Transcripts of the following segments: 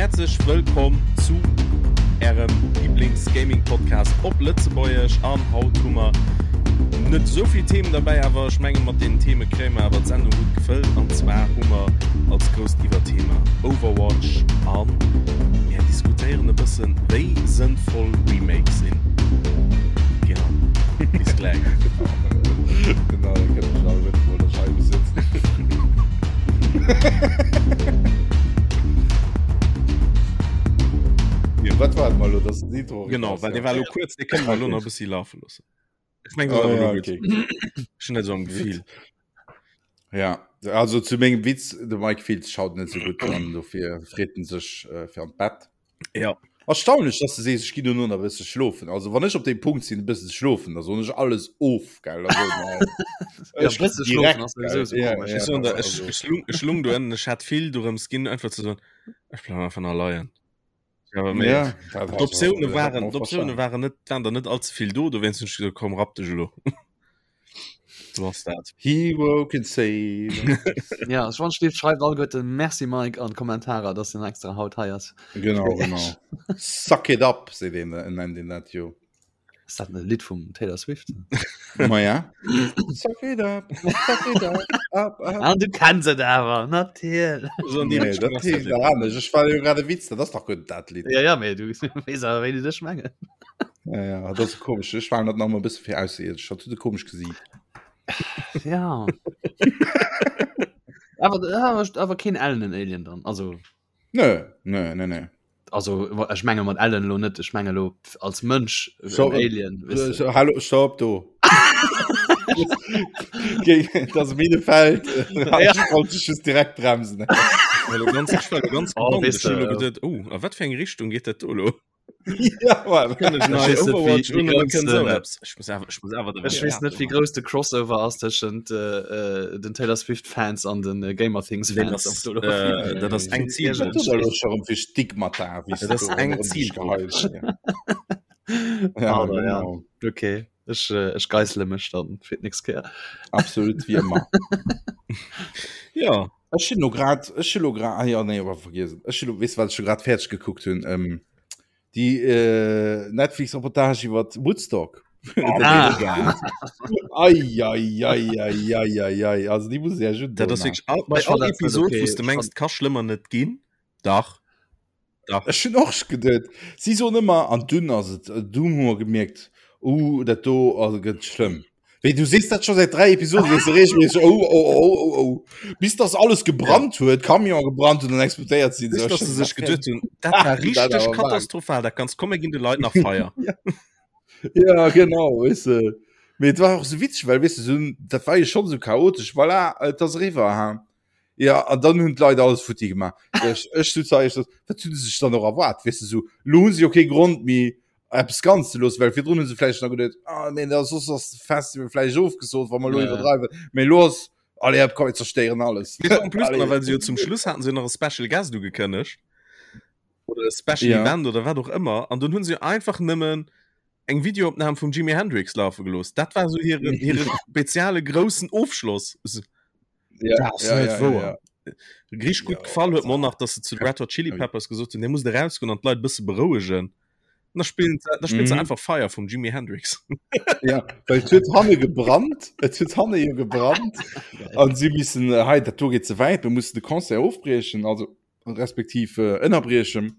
Häerzlech wëllkomm zu ärem Lieblings-Gaming-Podcast op Lëtzebuergesch. An haut hu mer net esou vill Themen derbäi, awer ech menge mat deenen Theme kréie mer awer d'Sendung gutt gefëllt. An zwar hu mer als grousst Iwwerthema Overwatch an mir diskutéieren e bëssen, wéi sënnvoll Remakes sinn. Genau. Bis gläich. Genau, da kënnt ech all wëtten, wou der Scheibe sitzt. Ja. Wat war mal lo, das den Intro? Genau, well dee war lo kuerz, dee kënne mer lo nach e bëssi lafe loossen. Ech meng, Oh, dat ass ja, awer lo gutt. okay. Ech hunn dat esou am Gefill. Ja, also zu mengem Witz, de Mike Fields schaut net so gutt an dofir freet en sech äh, fir an d'Bett. Ja. Erstaunlech, dass du sees, ech ginn dono nach e bësse schlofen. Also wann ech op dem Punkt sinn, e bësse ze schlofen, da soen ech alles of, gell? Da soen ech, Ja, ech bësse ginn schlofen direkt, ass sowieso gell? so Ja, komisch. ja, Ech soen der, also, ech, ech lung, ech lung do ënnen, ech hat vill dorëms ginn, einfach ze soen, ech bleiwen einfach nach leien. Ja, aber ja, dat also, D'Optioune dat hätt waren man och d'Optioune verstanen. waren net waren der net allze vill do, dowéinst hunn ech gesot, komm rapp dech elo. So ass dat. Hero can save us. Ja, ech wann schlift schreift alleguerten Merci Mike an d'Kommentarer, dass den extra haut hei ass. Genau, genau. Suck it up, seet een, nennt een dat jo. Ass dat e Lidd vum Taylor Swift? Ma ja. Suck it up, suck it up, up, up. An du kenns et awer, natierlech. So, nee, Nee, dat heescht nach anescht. Ech war jo grad e Witz, dat ass dach guer dat Lidd. Ja, ja, mee du weess awer, wéi ech mengen. Ja, ja, dat ass komesch. Ech war dat nach mal e bësse fir ausseierdesch. Dat huet e komesch Gesiit. Ja. awer, awer, awer keen ellenen Alien dann. Also, Nö, nö, nö, nö. also ech menge mat Ellen lo net, ech menge lo als Mënsch So, en Alien. Weißt du. So, hallo, stopp do. Das Minefeld Ja. wollte ich just direkt bremsen. Well lo ganz, ech war lo ganz Oh, gespannt. weess Ech hunn de, lo geduet, oh, a wat fir eng Richtung geet dat do lo? ja, Mann. Kënn ech nei weess net, wéi- Overwatch wéi un oder grouss kënn sou den- eppes? Ech muss awer, ech muss awer Ech weess net, wéi grouss de Crossover ass tëschent äh, äh, den Taylor Swift Fans an den äh, Gamer Things Nee, Fans. das, Ob do lo äh, dat ass eng Wat Zielgrupp. du da lo schon fir Stigmata, wéi Dat ass eng Zielgrupp. Ja, Aber ja. genau. Okay, ech, äh, ech geissele mech dann fir d'nächst Kéier. Absolut wie ëmmer. Ja, Ech hunn lo grad, ech hunn lo grad, ah ja, nee, awer vergiess et. Ech hunn lo, weess du, wat ech scho grad fäerdeg gekuckt hunn? Ähm, déi äh, Netflix-Reportage iwwer Woodstock. Ah. Ei, ei, ei, ei, ei, ei, ei. Also déi muss ich ja schon dat ass wierklech all, bei Ech fand all dat net Episod, okay. wou s de Ech mengs, fand- ka schlëmmer net ginn. Dach. Dach. Ech hunn och geduet, si soen ëmmer, an dunn ass et, dunn hu mer gemierkt, uh, dat do ass gëtt schlëmm. Wéi du sees dat scho säit 3 Episoden, sees du regelméisseg, oh, oh, oh, oh, oh, bis dass alles gebrannt huet, Camion gebrannt huet an explodéiert sinn. Bis So, dass ech se dacht, sech geduet hunn, dat war Dat richteg awer wahr. katastrophal, dat ganz komm, mir ginn de Leit nach Feier. Ja, genau, weess de. Mee et war och sou witzeg, well weess de, sou, dat war jo schonn sou chaotesch, voilà, et ass eriwwer, ha. Ja, an dann hunn d'Leit alles futti gemaach. Ech, ech sot zu eis, wat hunn se sech dann och erwaart, weess de, sou, lo hu se jo kee Grond méi, eppes ganz ze loossen, well virdrun hu se vläicht nach geduet, ah nee, da soss ass de Festival vläicht ofgesot, wa mer lo Ja. iwwerdreiwen. Mee lo ass, allez, hop, komm, mir zerstéieren alles. Mee en plus, Allez. well se jo zum Schluss haten se jo nach e Special Guest ugekënnegt oder e Special Ja. Event oder wat och ëmmer an dunn hunn se jo einfach nëmmen eng Videoopnam vum Jimi Hendrix lafe gelooss. Dat war sou hiren hire speziale groussen Ofschloss. So, Ja, Dat ass ja, net ja, ja, wouer. ja. Richteg gutt Ja, gefall huet dat mer nach, dass se zu de Red Hot Chili Peppers gesot hunn, dir musst erausgoen an d'Leit e bësse berouegen. An da spillen se, da spillen se Mhm. einfach Fire vum Jimi Hendrix. Ja, well et huet hanne gebrannt, et huet hanne jo gebrannt an si missen, äh, hei, dat do geet ze wäit, mir mussen de Concert ofbriechen, also respektiv äh, ënnerbriechen.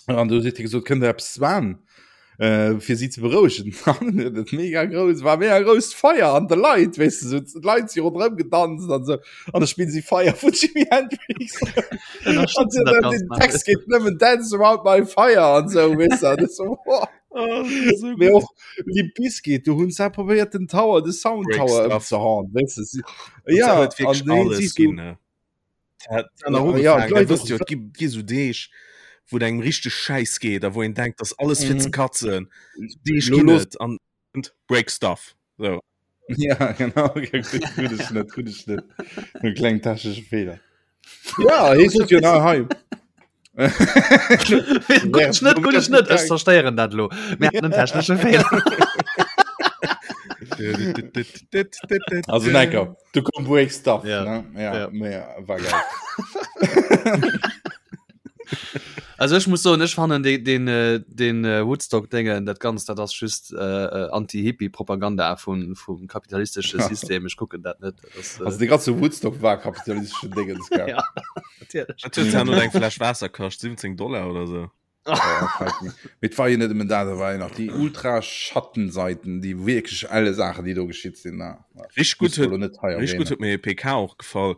An du huet hie gesot, kënnt der eppes zwan, äh, fir si ze berouegen. An huet et mega grouss, war mega grousst Feier an de Leit, weess de, sou d'Leit si ronderëm gedanzt an sou. An da spillen si Fire vun Jimi Hendrix. An Ënnerstëtzen dat den Ganzt nach. Text geet nëmmen Dance around my fire an sou, weess de. An ech sou, wow. Oh, so Mee och Limp Bizkit, du hunn se probéiert den Tower, de Sound Break Tower stuff. ëmzehauen, weess de. Si, Ja, ja, huet wierklech an deen alles siehst du, ginn, ne? Dat hat nach Ja, ugefaangen, d'Leit da wësst och- jo, et gi, gi sou Deeg, wou et engem richteg schäiss geet a wou een denkt, dass alles fir Mhm. ze katzen. Deeg Lo ginn los- et an break stuff. So. Ja, genau. Gudde Schnëtt, gudde Schnëtt. E kleng technesche Feeler. Ja, hie sot jo nach hei. Gudde Schnëtt, gudde Schnëtt, ech zerstéieren dat lo. Mir haten en technesche Feeler. Also Necker, du komm break stuff. Ja. Ne? Ja, Ja. ja. Mehr, war geil. Also ech muss soen, ech fannen den, den, äh, den äh, Woodstock-Déngen, dat Ganzt, dat ass just äh, äh, Anti-Hippie-Propaganda vun, vum kapitalistesche System. Ech kucken dat net. Dat ass, äh, Also de ganze Woodstock war kapitalistesche Dingens, gell? Ja, natierlech. Dat huet ja nur eng Fläsch Waasser kascht, 17 Dollar oder so. Mee et war jo net nëmmen dat, et war jo nach déi ultra Schattenseiten, déi wierklech elle Saachen, déi do geschitt sinn. Richteg gutt huet net hei richteg gutt huet mir e PK och gefall,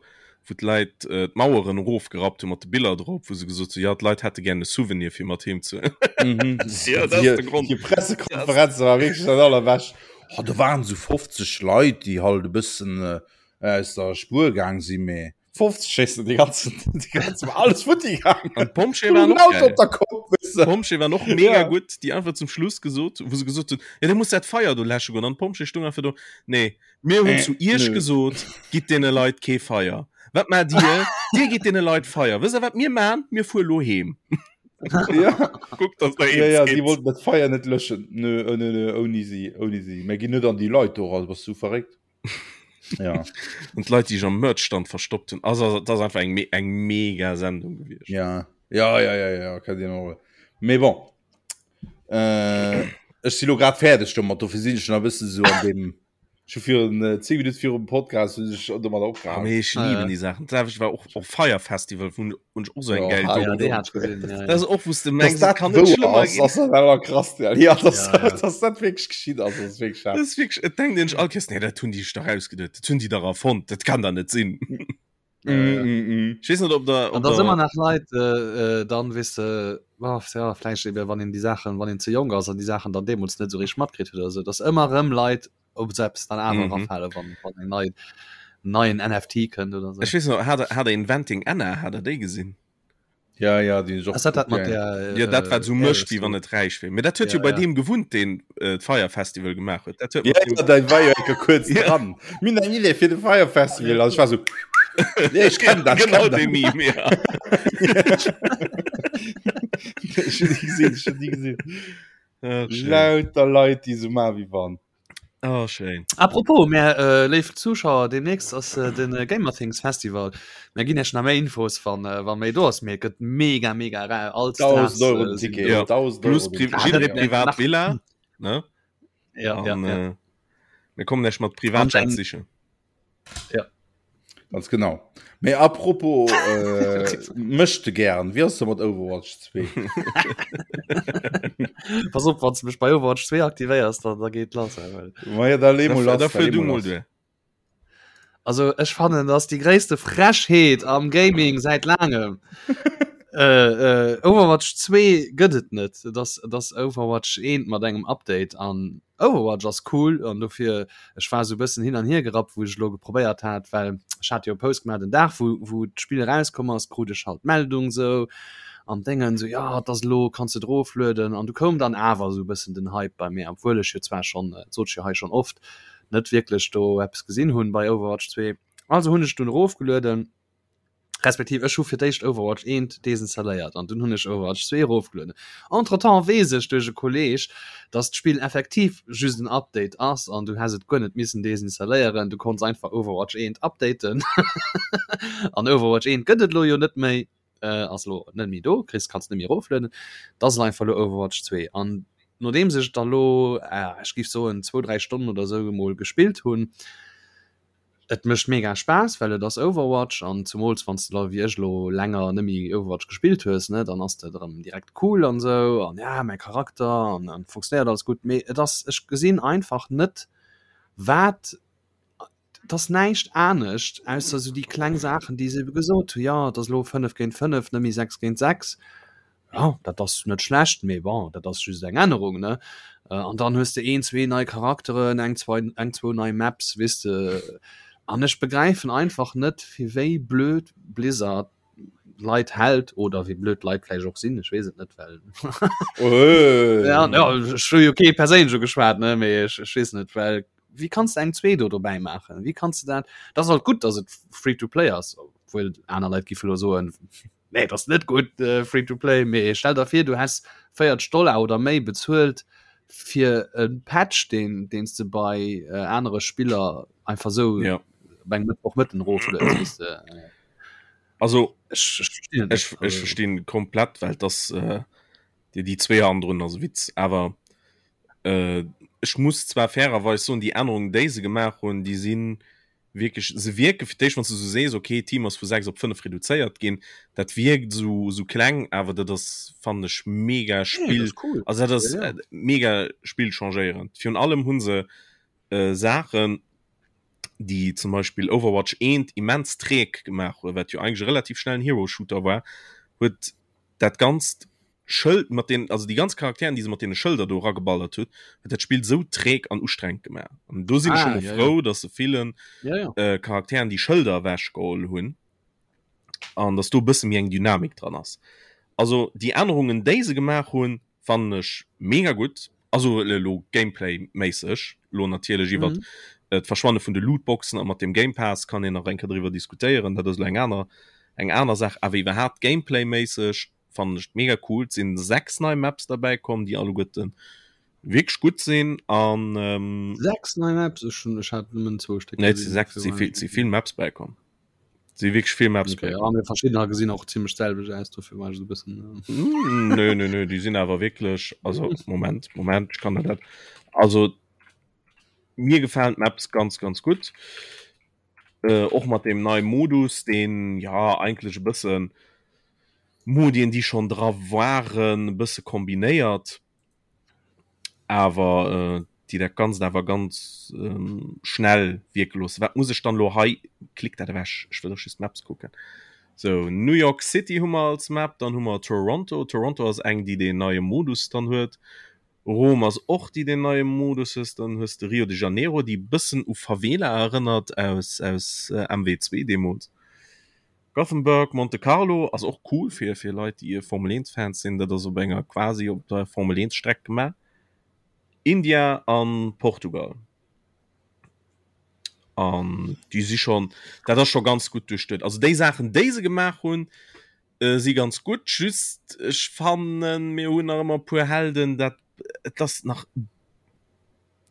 wou d'Leit äh, d'Maueren erofgerappt hu mat de Biller drop, wou se gesot hu, ja d'Leit hätte gär e Souvenir fir mat heem ze. Mhm. ja, dat ass de Grond. Déi Pressekonferenz war wierklech dat allerbescht. Oh, do waren esou 50 Leit, déi halt e bëssen äh, aus der Spuer gaang sinn, mee 50 schéissen die ganzen, die ganzen alles futti gegangen. An d'Pompjeeë waren och geil. Op der Kopp, weißt du. D'Pompjeeë waren och mega ja. gutt, déi einfach zum Schluss gesot, wou se gesot hunn, ja, da muss dat Feier do läsche goen. An d'Pompjeeë stung einfach do, nee, mir hunn äh, zu iech nö. gesot, gitt deene Leit kee Feier. Wat maacht dir? dir gitt deene Leit Feier. Wësst der, wat mir maan? Mir fuere lo heem. ja. Guckt, dass der ja, ja, sie wollten dat Feier net löschen. Nö, nö, nö, ouni si, ouni si. Mir ginn net an déi Leit do, also bass du verréckt? Ja. Und Leute, die sich am Merchstand verstoppt hun. Also das ist einfach eng, eng mega Sendung gewesen. Ja, ja, ja, ja, ja, kann dir noch. Mais bon. Äh, ech si lo grad fäerdeg domat, dofir sinn ech nach e bëssen so an dem schon virun äh, 10 Minuten virum Podcast hunn ech domat Ah, opgehalen. mee ech lieben die Sachen. Das war och och Fire Festival vun und och so eng Ja, geil ah, Doku. ja, déi hat ich gesehen, ja, ja. Das ist och wous de Dass mengs, et dat kann net wouer schlëmmer ass, ginn. ass dat awer krass, ja. Ja, dass, Ja, ja. dass dat wierklech geschitt ass, ass wierklech Das ist wirklich, et denkt een sech all Kéiers, nee, dat hunn déi sech dach ausgeduet, dat hunn déi dach erfonnt, dat kann dach net sinn. Mm, mm, mm. Ich weess net, ob der, An ob da der ëmmer nach Leit äh, äh, dann weess de oh, ja, vläicht eben wann een déi Saachen wann een ze jonk ass an déi Saachen dann deemools net esou richteg matkritt huet oder sou, dass ëmmer erëm Leit op selbst dann awer Mhm. erafale wann wann eng nei neien NFT kënnt oder sou. Ech weess nach, hat der, hat der Inventing Anna, hat der déi gesinn? Ja, ja, déi hunn ech och Ass dat dat gekuckt, mat ja, ja. der Ja, dat wat äh, sou mécht, Heiress wéi do? wann et räich wier. Mee dat huet Ja, jo bei ja. deem gewunnt, deen äh, d'Fire Festival gemaach huet. Dat huet Ja, mat deem ja, dat war jo enke kuerz Ja. dran. Mir hunn eng Idee fir de Fire Festival. An ech war sou, nee, ech kenn dat, ech Genau kenn dat. dee Meme, ja. Ech hunn déi gesinn, ech hunn déi gesinn. Ach, schéin. Lauter Leit, déi sou maachen, wéi wann. Oh, schéin. Apropos, mär äh, léif Zuschauer, demnächst ass äh, den äh, Gamerthings Festival. Mär ginn iech nach méi Infos, wann, äh, wann méi do ass. Mee et gëtt mega, mega rar. All 1000 Stars Euro äh, den sinn Ticket. do. Ja. 1000 Plus Euro den Pri Ticket. Ah, jidderee dat, privat nach, Villa, ne? ja, ja, An ja. äh, mir kommen lech mat An Privatjet eng, sichen. ja. Ganz genau. Mee apropos äh, mëschte gären, wéi ass de mat Overwatch 2? Pass op, wann du mech bei Overwatch 2 aktivéiers, dann, da geet lass. ey, well. Ma ja, da lee mol Da, lass, da da fuer lee du mol mol lass. duer. Also ech fannen das die gréisste Frechheet am Gaming seit langem. äh, äh, Overwatch 2 gëtt et net. Das, das Overwatch 1 mat engem Update an Overwatch ass cool an dofir ech war sou bëssen hin an hier gerappt wou ech elo geprobéiert hat well ech hat jo e Post gemaach den Dag wou wou d'Spill erauskomm ass krut ech halt d'Meldung sou an Déngen sou jo et ass elo kanns de et eroflueden an du koum dann awer sou bëssen den Hype bei mir obwuel ech jo zwar schonn dat sot ech jo hei schonn oft net wierklech do eppes gesinn hunn bei Overwatch 2 also hunn ech dunn erofgelueden. Respektiv ech hu fir d'éischt Overwatch 1 desinstalléiert an dunn hunn ech Overwatch 2 erofgelueden. Entretemps weess ech duerch e Kolleeg, dass d'Spill effektiv just en Update ass an du häss et guer net missen desinstalléieren, du konns einfach Overwatch 1 updaten an Overwatch 1 gëtt et elo jo net méi, ass elo net méi do, kriss kanns net méi eroflueden, et ass einfach elo Overwatch 2 an nodeems ech et da lo, ech géif soen zwou, dräi Stonnen oder esou emol gespillt hunn, Et mécht mega Spaass, well et ass Overwatch an zumools wann s de da wéi ech elo länger net méi Overwatch gespillt hues, ne, dann ass dat erëm direkt cool an esou an ja mäi Charakter an an funktionéiert alles gutt. Mee et ass, ech gesinn einfach net wat, et ass näischt anescht ausser esou déi kleng Saachen déi se ebe gesot hu, jo et ass elo 5 géint 5, net méi 6 géint 6. Ja, dat ass net schlecht, mee bon, dat ass just eng Ännerung, ne? An dann hues de een, zwee nei Charakteren, eng, zwei, eng, zwou nei Maps, weess de. An ech begräifen einfach net, fir wéi blöd Blizzard d'Leit hält oder wéi blöd d'Leit vläicht och sinn, ech weess et net, well ja, ja, ech hu jo kee perséinlech ugeschwat, ne, mee ech, ech weess net, well wéi kanns de eng zwee do dobäi maachen? Wéi kanns de dat? Dat ass halt gutt, datt et free to play ass, obwuel aner Leit géife lo soen, Nee, dat ass net gutt äh, free to play, mee stell der vir du häss 40 Dollar oder méi bezuelt fir e Patch deen deens de bei äh, anere Spiller einfach sou ja. op engem Mëttwochmëtten eroflueds, weess de. Also ech, ech, ech, ech verstinn komplett, well das äh, déi déi zwee anderen ass Witz awer äh, ech muss zwar fairerweis soen, déi Ännerungen déi se gemaach hunn, déi sinn wierklech se wierke fir d'éischt wann s du sou sees okay Team ass vu 6 op 5 reduzéiert ginn, dat wierkt sou sou kleng, awer dat ass fannen ech mega Spill nee, cool. also dat ass ja, ja. Äh, mega Spill changéierend. Virun allem hunn se äh, Saachen déi zum Beispill Overwatch 1 immens träg gemaach huet, wat jo eigentlech e relativ schnellen Hero-Shooter war, huet dat ganzt Schëld mat den, also déi ganz Charakteren, déi se mat deene Schëlder do erageballert huet, huet dat Spill sou träg an ustrengend gemaach. An do sinn ech ah, scho mol ja, frou, ja. dass se villen ja, ja. Äh, Charakteren déi Schëlder ewechgeholl hunn an dass do e bësse méi eng Dynamik dran ass. Also déi Ännerungen, déi se gemaach hunn, fannen ech mega gutt. Also elo Gameplay-méisseg, elo natierlech iwwert mhm. Äh, d'Verschwanne vun de Lootboxen a mat dem Game Pass kann een nach eng Kéier driwwer diskutéieren, dat ass elo eng aner eng aner Saach, awer iwwerhaapt Gameplay-méisseg fannen ech mega cool. Et sinn 6 nei Maps derbäi komm, déi alleguerte wierklech gutt sinn an ähm, 6 nei Maps? Ech hunn ech hat nëmmen zwou Stéck Nee, et si 6, si vill, si vill Maps bäikomm. Si wierklech vill Maps okay, ja, mir verschiddener gesinn och ziemlech selwech aus, dofir war ech so bëssen. Äh... Mm, nö, nö, nö, déi sinn awer wierklech, also Moment, Moment, ech kann der dat. Also mir gefalen d'Maps ganz, ganz gutt. Äh, och mat deem neie Modus, deen ja eigentlech e bëssen Modien, déi schonn dra waren, e bësse kombinéiert. Awer déi dat Ganzt awer ganz schnell wierke loossen. Wat muss ech dann elo hei? Klick dat ewech, ech wëll och just d'Maps kucken. Sou, New York City hu mer als Map, dann hu mer Toronto. Toronto ass eng, déi deen neie Modus dann huet. Rom ass och déi deen neie Modus hues. Dann hues de Rio de Janeiro, déi e bëssen u Favela erënnert aus aus MW2 deemools. Gothenburg, Monte Carlo ass och cool fir fir Leit déi Formel 1 Fans sinn, dat ass op enger quasi op der Formel 1 Streck gemaach. India an Portugal. An déi si schon dat ass scho ganz gutt duerchduet. Also déi Saachen déi se gemaach hunn äh, si ganz gutt, just ech fannen mir hunn nach ëmmer e puer Helden dat et ass nach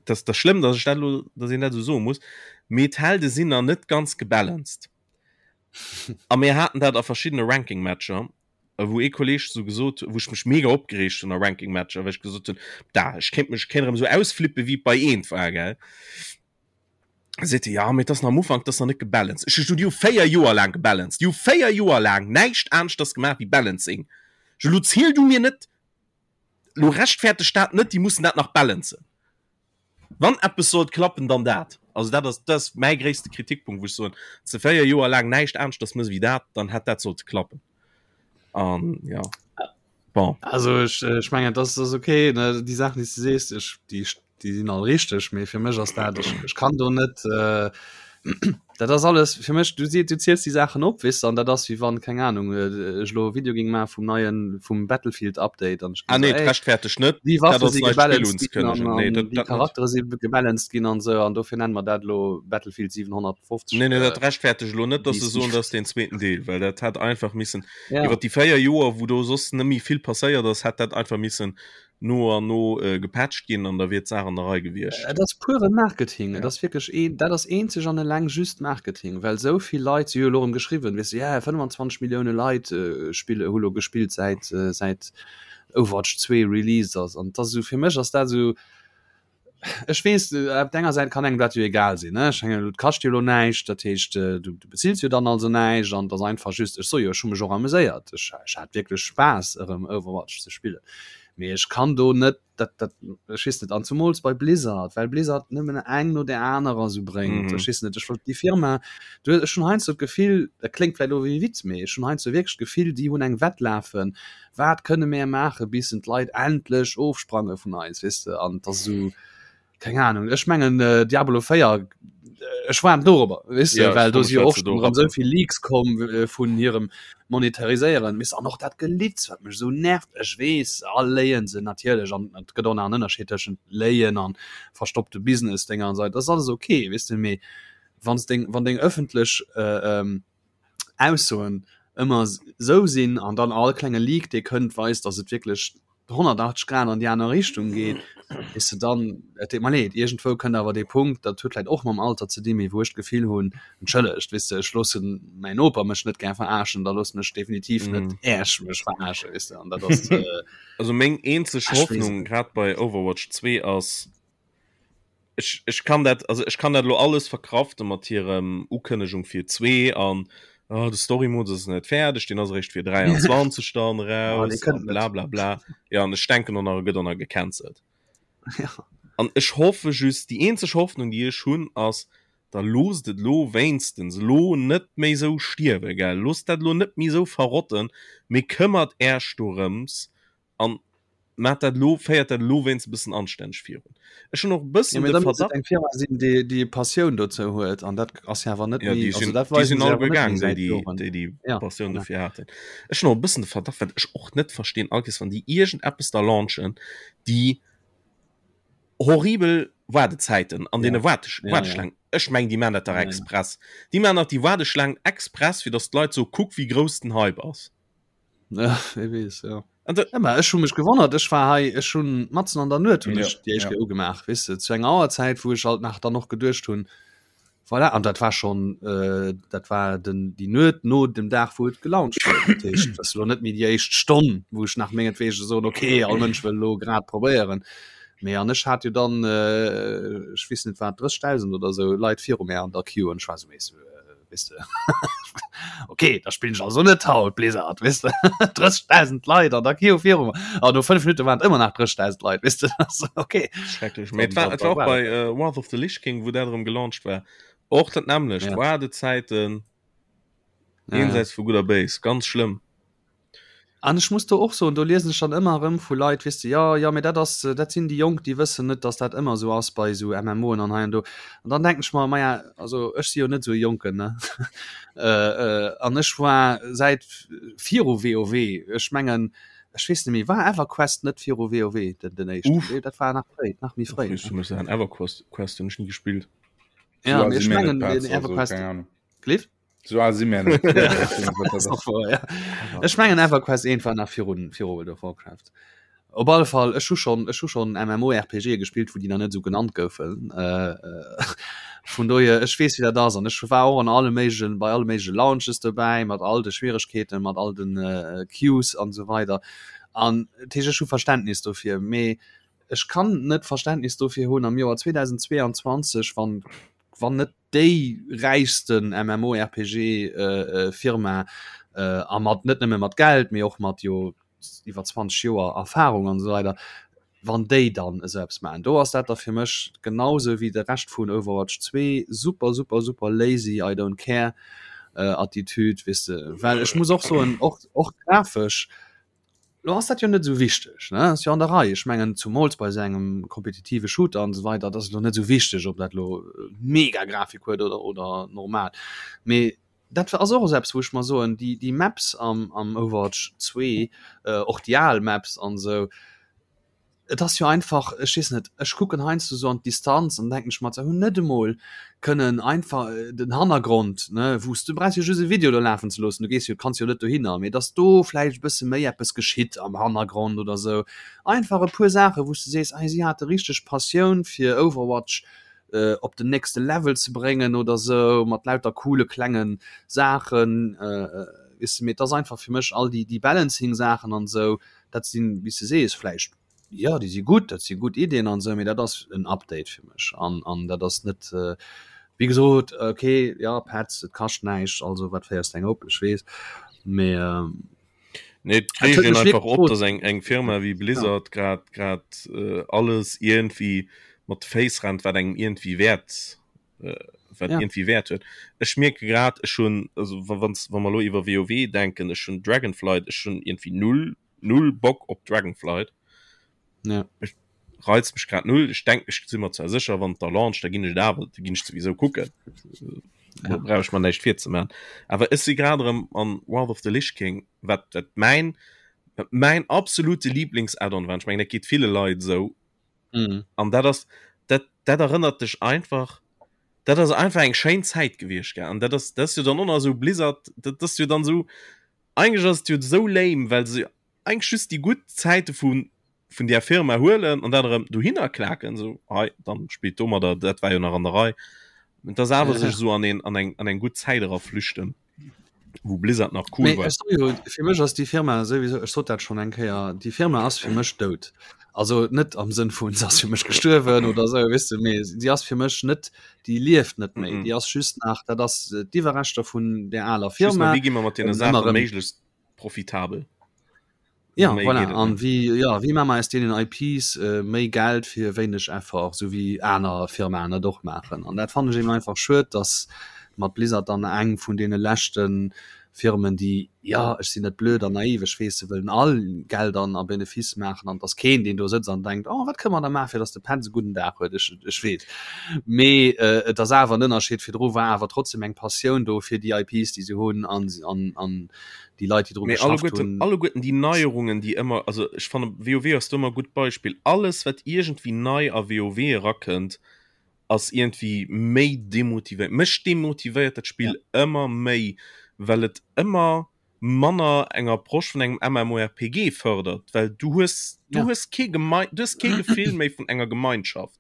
dat ass schlëmm, datt ech dat elo datt een dat esou soe muss, mee d'Helde sinn nach net ganz gebalanced. A mir haten dat a verschiddene Ranking-Matcher, wou ee Kolleeg sou gesot, wou ech mech mega opgereegt hunn a Ranking-Matcher, well ech gesot hunn, da ech kéint mech kéint erëm sou ausflippe wéi et bei eent war, gell. Da seet e, ja, mee et ass nach am Ufank, et ass nach net gebalanced. Ech hu gesot, déi hu 4 Joer laang gebalanced, déi hu 4 Joer laang näischt aneschters gemaach wéi Balancing. Ech elo ziel du mir net, elo rechtferteg dat net, déi mussen dat nach balancen. Wann eppes sollt klappen, dann dat. Also dat ass, dat ass mäi gréisste Kritikpunkt, wou ech soen, wann s de 4 Joer laang näischt aneschters mëss wéi dat, dann hätt dat sollte klappen. An ja, bon. Also ech, ech mengen, dat ass okay, ne, déi Saachen, déi s de sees, ech, déi, déi sinn all richteg, mee fir mech ass dat, ech, ech kann do net, äh, dat ass alles fir mech, du si, du ziels déi Saachen op, weess de, an dat ass wéi wann, keng Ahnung, ech elo e Video géing maache vum neien, vum Battlefield Update an ech géing Ah nee, soen, ey, rechtferteg net, déi dat Waffe ass si neit Spill gebalanced ginn an, unzekënnegen. Nee, an dat, déi dat net. Charaktere si gebalanced ginn an esou an dofir nenne mer dat elo Battlefield 750. Nee, nee, dat rechtferteg elo net, dass se soen, dat ass deen zweeten Deel, well dat hätt einfach missen, Ja. iwwer déi 4 Joer, wou do soss net méi vill passéiert ass, hätt dat einfach missen no an no äh, gepatcht ginn an da wier d'Saach an der Rei gewiescht. Et ass pure Marketing. Et ass wierklech een, dat ass eenzeg an eleng just Marketing, well esou vill Leit, si hu jo elo erëm geschriwwen, weess de, ja 25 Millioune Leit äh, spille, hu lo gespillt säit äh, säit Overwatch 2 released ass. An dat ass esou, fir mech ass dat esou, ech weess, op der enger Säit kann engem dat jo egal sinn, ne, ech mengen, et kascht jo elo näischt, dat heescht, du du bezills jo dann also näischt an et ass einfach just, ech soe jo, ech hu mech och ameséiert, ech ech hat wierklech Spaass erëm Overwatch ze spillen, mee ech kann do net dat dat ech weess net, an zumools bei Blizzard, well Blizzard nëmmen eng no där anerer esou bréngt, ech weess net, ech wollt déi Firma, du ech hunn heiansdo d'Gefill, dat kléngt vläicht elo wéi e Witz, mee ech hunn heiansdo wierklech d'Gefill, déi hunn eng Wett lafen, Wat kënne mär maache bis en d'Leit endlech ofsprange vun eis, weess de? An et ass esou, keng Ahnung, ech mengen Diablo 4, ech waarden dorobber, weess de, well do si jo och schonn erëm esou vill Leaks komm vun hirem Monetariséieren, weess de, an och dat Gelitz, wat mech esou nervt. Ech weess, all léien se natierlech an et gëtt och nach en Ënnerscheed tëschent léien an verstoppte Business-Dénger an esou weider, dat ass alles ok, weess de, mee wann s deng, wann deng ëffentlech Aussoen ëmmer esou sinn an dann all klenge Leak dee kënnt weist, datt et wierklech 180 Grad an déi aner Richtung geet. Weess de, dann, et deet mer leed, iergendwou kënnt awer dee Punkt, dat huet vläicht och mam Alter ze dinn, mee wou ech d'Gefill hunn, entschëllegt, weess de, ech loossen mäin Noper mech net gär verarschen, da loossen ech definitiv net Äech mech verarschen, weess de, an dat ass. Also meng eenzeg Hoffnung grad bei Overwatch 2 ass, ech, ech kann dat, also ech kann dat lo alles verkrafte mat hirem Ukënnegung fir 2 an oh, de Story Mode ass net fäerdeg, deen ass eréischt fir 23 dann raus an bla bla bla. Ja an ech denken och nach e gëtt och nach gecancelt. Ja. An ech hoffe just, déi eenzeg Hoffnung déi ech hunn ass, da loosst et lo wéinstens lo net méi sou stierwe gell, loosst dat lo net méi sou verrotten, mee këmmert Äerch dorëms an maat dat lo, féiert dat lo wéinstens e bëssen anstänneg virun. Ech hunn och e bëssen de Verdacht. Eng Firma sinn, déi déi Passioun dozou huet an dat ass jo awer net méi, also dat weisen se awer net méi säit Joren. Déi déi Passioun dofir haten. Ech hunn och e bëssen de Verdacht, wat ech och net verstinn, all Kees wann déi iergendeppes da launchen, déi horribel Waardezäiten an deene Waardeschlaangen. Ech mengen, déi maachen dat dach express. Déi maachen dach déi Waardeschlaangen express, fir datt d'Leit soen, kuck wéi grouss den Hype ass. Ja, wie weess, ja. An da, ja, ech hu mech gewonnert, ech war hei, ech hunn matzen an der Nuet hunn ech déi éischt Kéier ugemaach, weess de, zu enger Auerzäit, wou ech alt nach dann och geduecht hunn, voilà, an dat war schonn, äh, dat war den, déi Nuet no dem Dag, wou et gelauncht huet. Dat heescht, dat ass elo net méi déi éischt Stonn, wou ech nach mengetwege soen, okay, all Mënsch wëll elo grad probéieren. Mee an ech hat jo dann, äh, ech weess net wat, 30.000 oder esou Leit viru mär an der Queue an ech war esou, weess de, Weißt du? Okay, da spillen ich also net haut Blizzard, weißt du? 30.000 Leit an der Queue viru mir. An no 5 Minuten waren ëmmer nach 30.000 Leit, weißt du? Also, okay. Schrecklech. Mee et war, et war och bei äh, Wrath of the Lich King, wou dat erëm gelauncht war. Och dat nämmlecht. Ja. Waardezäiten. Ja. Jenseits vu Gutt a Béis. Ganz schlëmm. An ech muss do och soen, do liesen ech dann ëmmer erëm vu Leit, weess de, jo, jo, mee dat ass, dat sinn déi Jonk, déi wëssen net, datt dat ëmmer esou ass bei esou MMOen an hei an do. An dann denken ech mer, maja, also ech si jo net esou e Jonken, ne? An ech war säit viru WoW, ech mengen, ech weess net méi, war EverQuest net viru WoW den, den éischten? Uff. Nee, dat war nach fréi, nach méi fréi, ne? Ech muss EverQuest Quest hunn ech ni gespillt. Ja, mee ech mengen, den EverQuest, Cliff? So al si mir net. Ech mengen EverQuest 1 war nach virun viru World of Warcraft. Op alle Fall ech hu schon ech hu schon MMORPG gespillt, wou déi nach net esou genannt goufen. Äh, äh, vun dohier ech weess wéi dat ass an ech war och an alle méiglechen bei alle méigleche Launches dobäi mat all de Schwieregkeeten, mat all den äh, Queues an esou weider. An dat heescht ech hu Verständnis dofir, mee ech kann net Verständnis dofir hunn am Joer 2022 wann wann net déi räichsten MMORPG Firma a mat net nëmme mat Geld, mee och mat jo iwwer 20 Joer Erfahrung an esou weider, wann déi dann esou eppes maachen, do ass dat da fir mech genau esou wéi de Rescht vun Overwatch 2, super super super lazy I don't care Attitude, weess de, well ech muss och soen, och och grafesch Lo ass dat jo net esou wichteg, ne? Ass jo an der Rei. Ech mengen, zumools bei esou engem kompetitive Shooter an esou weider, dat ass elo net esou wichteg, ob dat elo mega Grafik huet oder, oder normal. Mee dat ass och esou eppes, wou ech mer soen, déi, déi Maps am, am Overwatch 2, och déi al Maps an esou, Et ass jo einfach, ech weess net, ech kucken heiansdo sou an d'Distanz an denken ech mer, se hunn net emol kënnen einfach den Hannergrond, ne, wou s du brauchs jo just e Video do lafen ze loossen, du gees jo, kanns jo net dohinner, mee dass do vläicht e bësse méi eppes geschitt am Hannergrond oder sou. Einfach e puer Saachen, wou s du sees, hei si hate richteg Passioun fir Overwatch op den nächste Level ze bréngen oder sou, mat lauter coole klenge Saachen, weess de. Mee et ass einfach fir mech all déi, déi Balancing-Saachen an sou, dat sinn, wéi s de sees, vläicht, jo, déi si gutt, dat si gutt Iddien an esou, mee dat ass en Update fir mech an, an dat ass net, wéi gesot, okay, jo, Petz, et kascht näischt, also wat féiers de eng op, ech weess, mee. Nee, et reegt een einfach op, dass eng, eng Firma wéi Blizzard grad, grad alles iergendwéi mat de Féiss rennt, wat engem iergendwéi Wäert wat ja. irgendwie Wert huet. Ech mierke grad ech hun also wann wann mer lo iwwer WoW denken, ech hun Dragonflight, ech hun irgendwie null null Bock op Dragonflight. Ja. Ech reizt mech grad null. Ech denk ech si mer zwar sécher wann der launch, da ginn ech et awer da ginn ech sowieso kucken. Ja. Brauch ech mer näischt virzeman. Awer ech si grad erëm an Wrath of the Lich King, wat wat mäin wat mäin absolute Lieblings-Add-on war. Ech mengen dat geet ville Leit esou. Mhm. An dat ass dat dat erënnert dech einfach dat ass einfach eng schéin Zäit gewiescht gell an dat ass dat ass jo dann och nach esou Blizzard dat ass jo dann esou eigentlech ass et jo esou lame well se eigentlech just déi gutt Zäite vu. Vun där Firma huelen an dat erëm dohinner klaken, esou hei, dann spillt domadder, dat war jo nach an der Rei. Et ass awer sech esou an een, an eng, an eng gutt Zäit era flüchten, wou Blizzard nach cool Mee war. ech soe jo, fir mech ass déi Firma souwisou, ech sot dat schonn eng Kéier, déi Firma ass fir mech dout. Also net am Sënn vun se ass fir mech gestuerwen oder esou, weess de, mee si ass fir mech net, déi lieft net méi, déi ass just nach, dat ass d'Iwwerreschter vun där aler Just nach, Firma. wéi gi mer mat deene Ëmmer Saache erëm. méiglechst profitabel? Ja, Méi voilà. geet et An net. wéi, ja, wéi maache mer aus deenen IPs äh, méi Geld fir wéineg Effort, sou wéi aner Firmaen et och maachen. An dat fannen ech eben einfach schued, dass mat Blizzard dann eng vun deene leschte Firmen, déi, ja, ech sinn net blöd an naiv, ech weess, se wëllen all Geld an a Benefice maachen an et ass keen, deen do sëtzt an denkt, oh, wat kënne mer da maachen, fir dass de Petz e gudden Dag huet. Ech, ech weess. Mee äh, et ass awer en Ënnerscheed. Virdru war awer trotzdem eng Passioun do fir déi IPs, déi se hunn an, an, an déi Leit, déi dru Mee geschafft alleguerten, hunn. alleguerten déi Neierungen, déi ëmmer, also ech fanne WoW ass do ëmmer e gutt Beispill, alles wat iergendwéi nei a WoW erakënnt, ass iergendwéi méi demotivéiert. Mech demotivéiert dat Spill Ja. ëmmer méi, well et ëmmer manner eng Approche vun engem MMORPG fërdert, well du hues, du Ja. hues kee Gemei, du hues kee Gefill méi vun enger Gemeinschaft.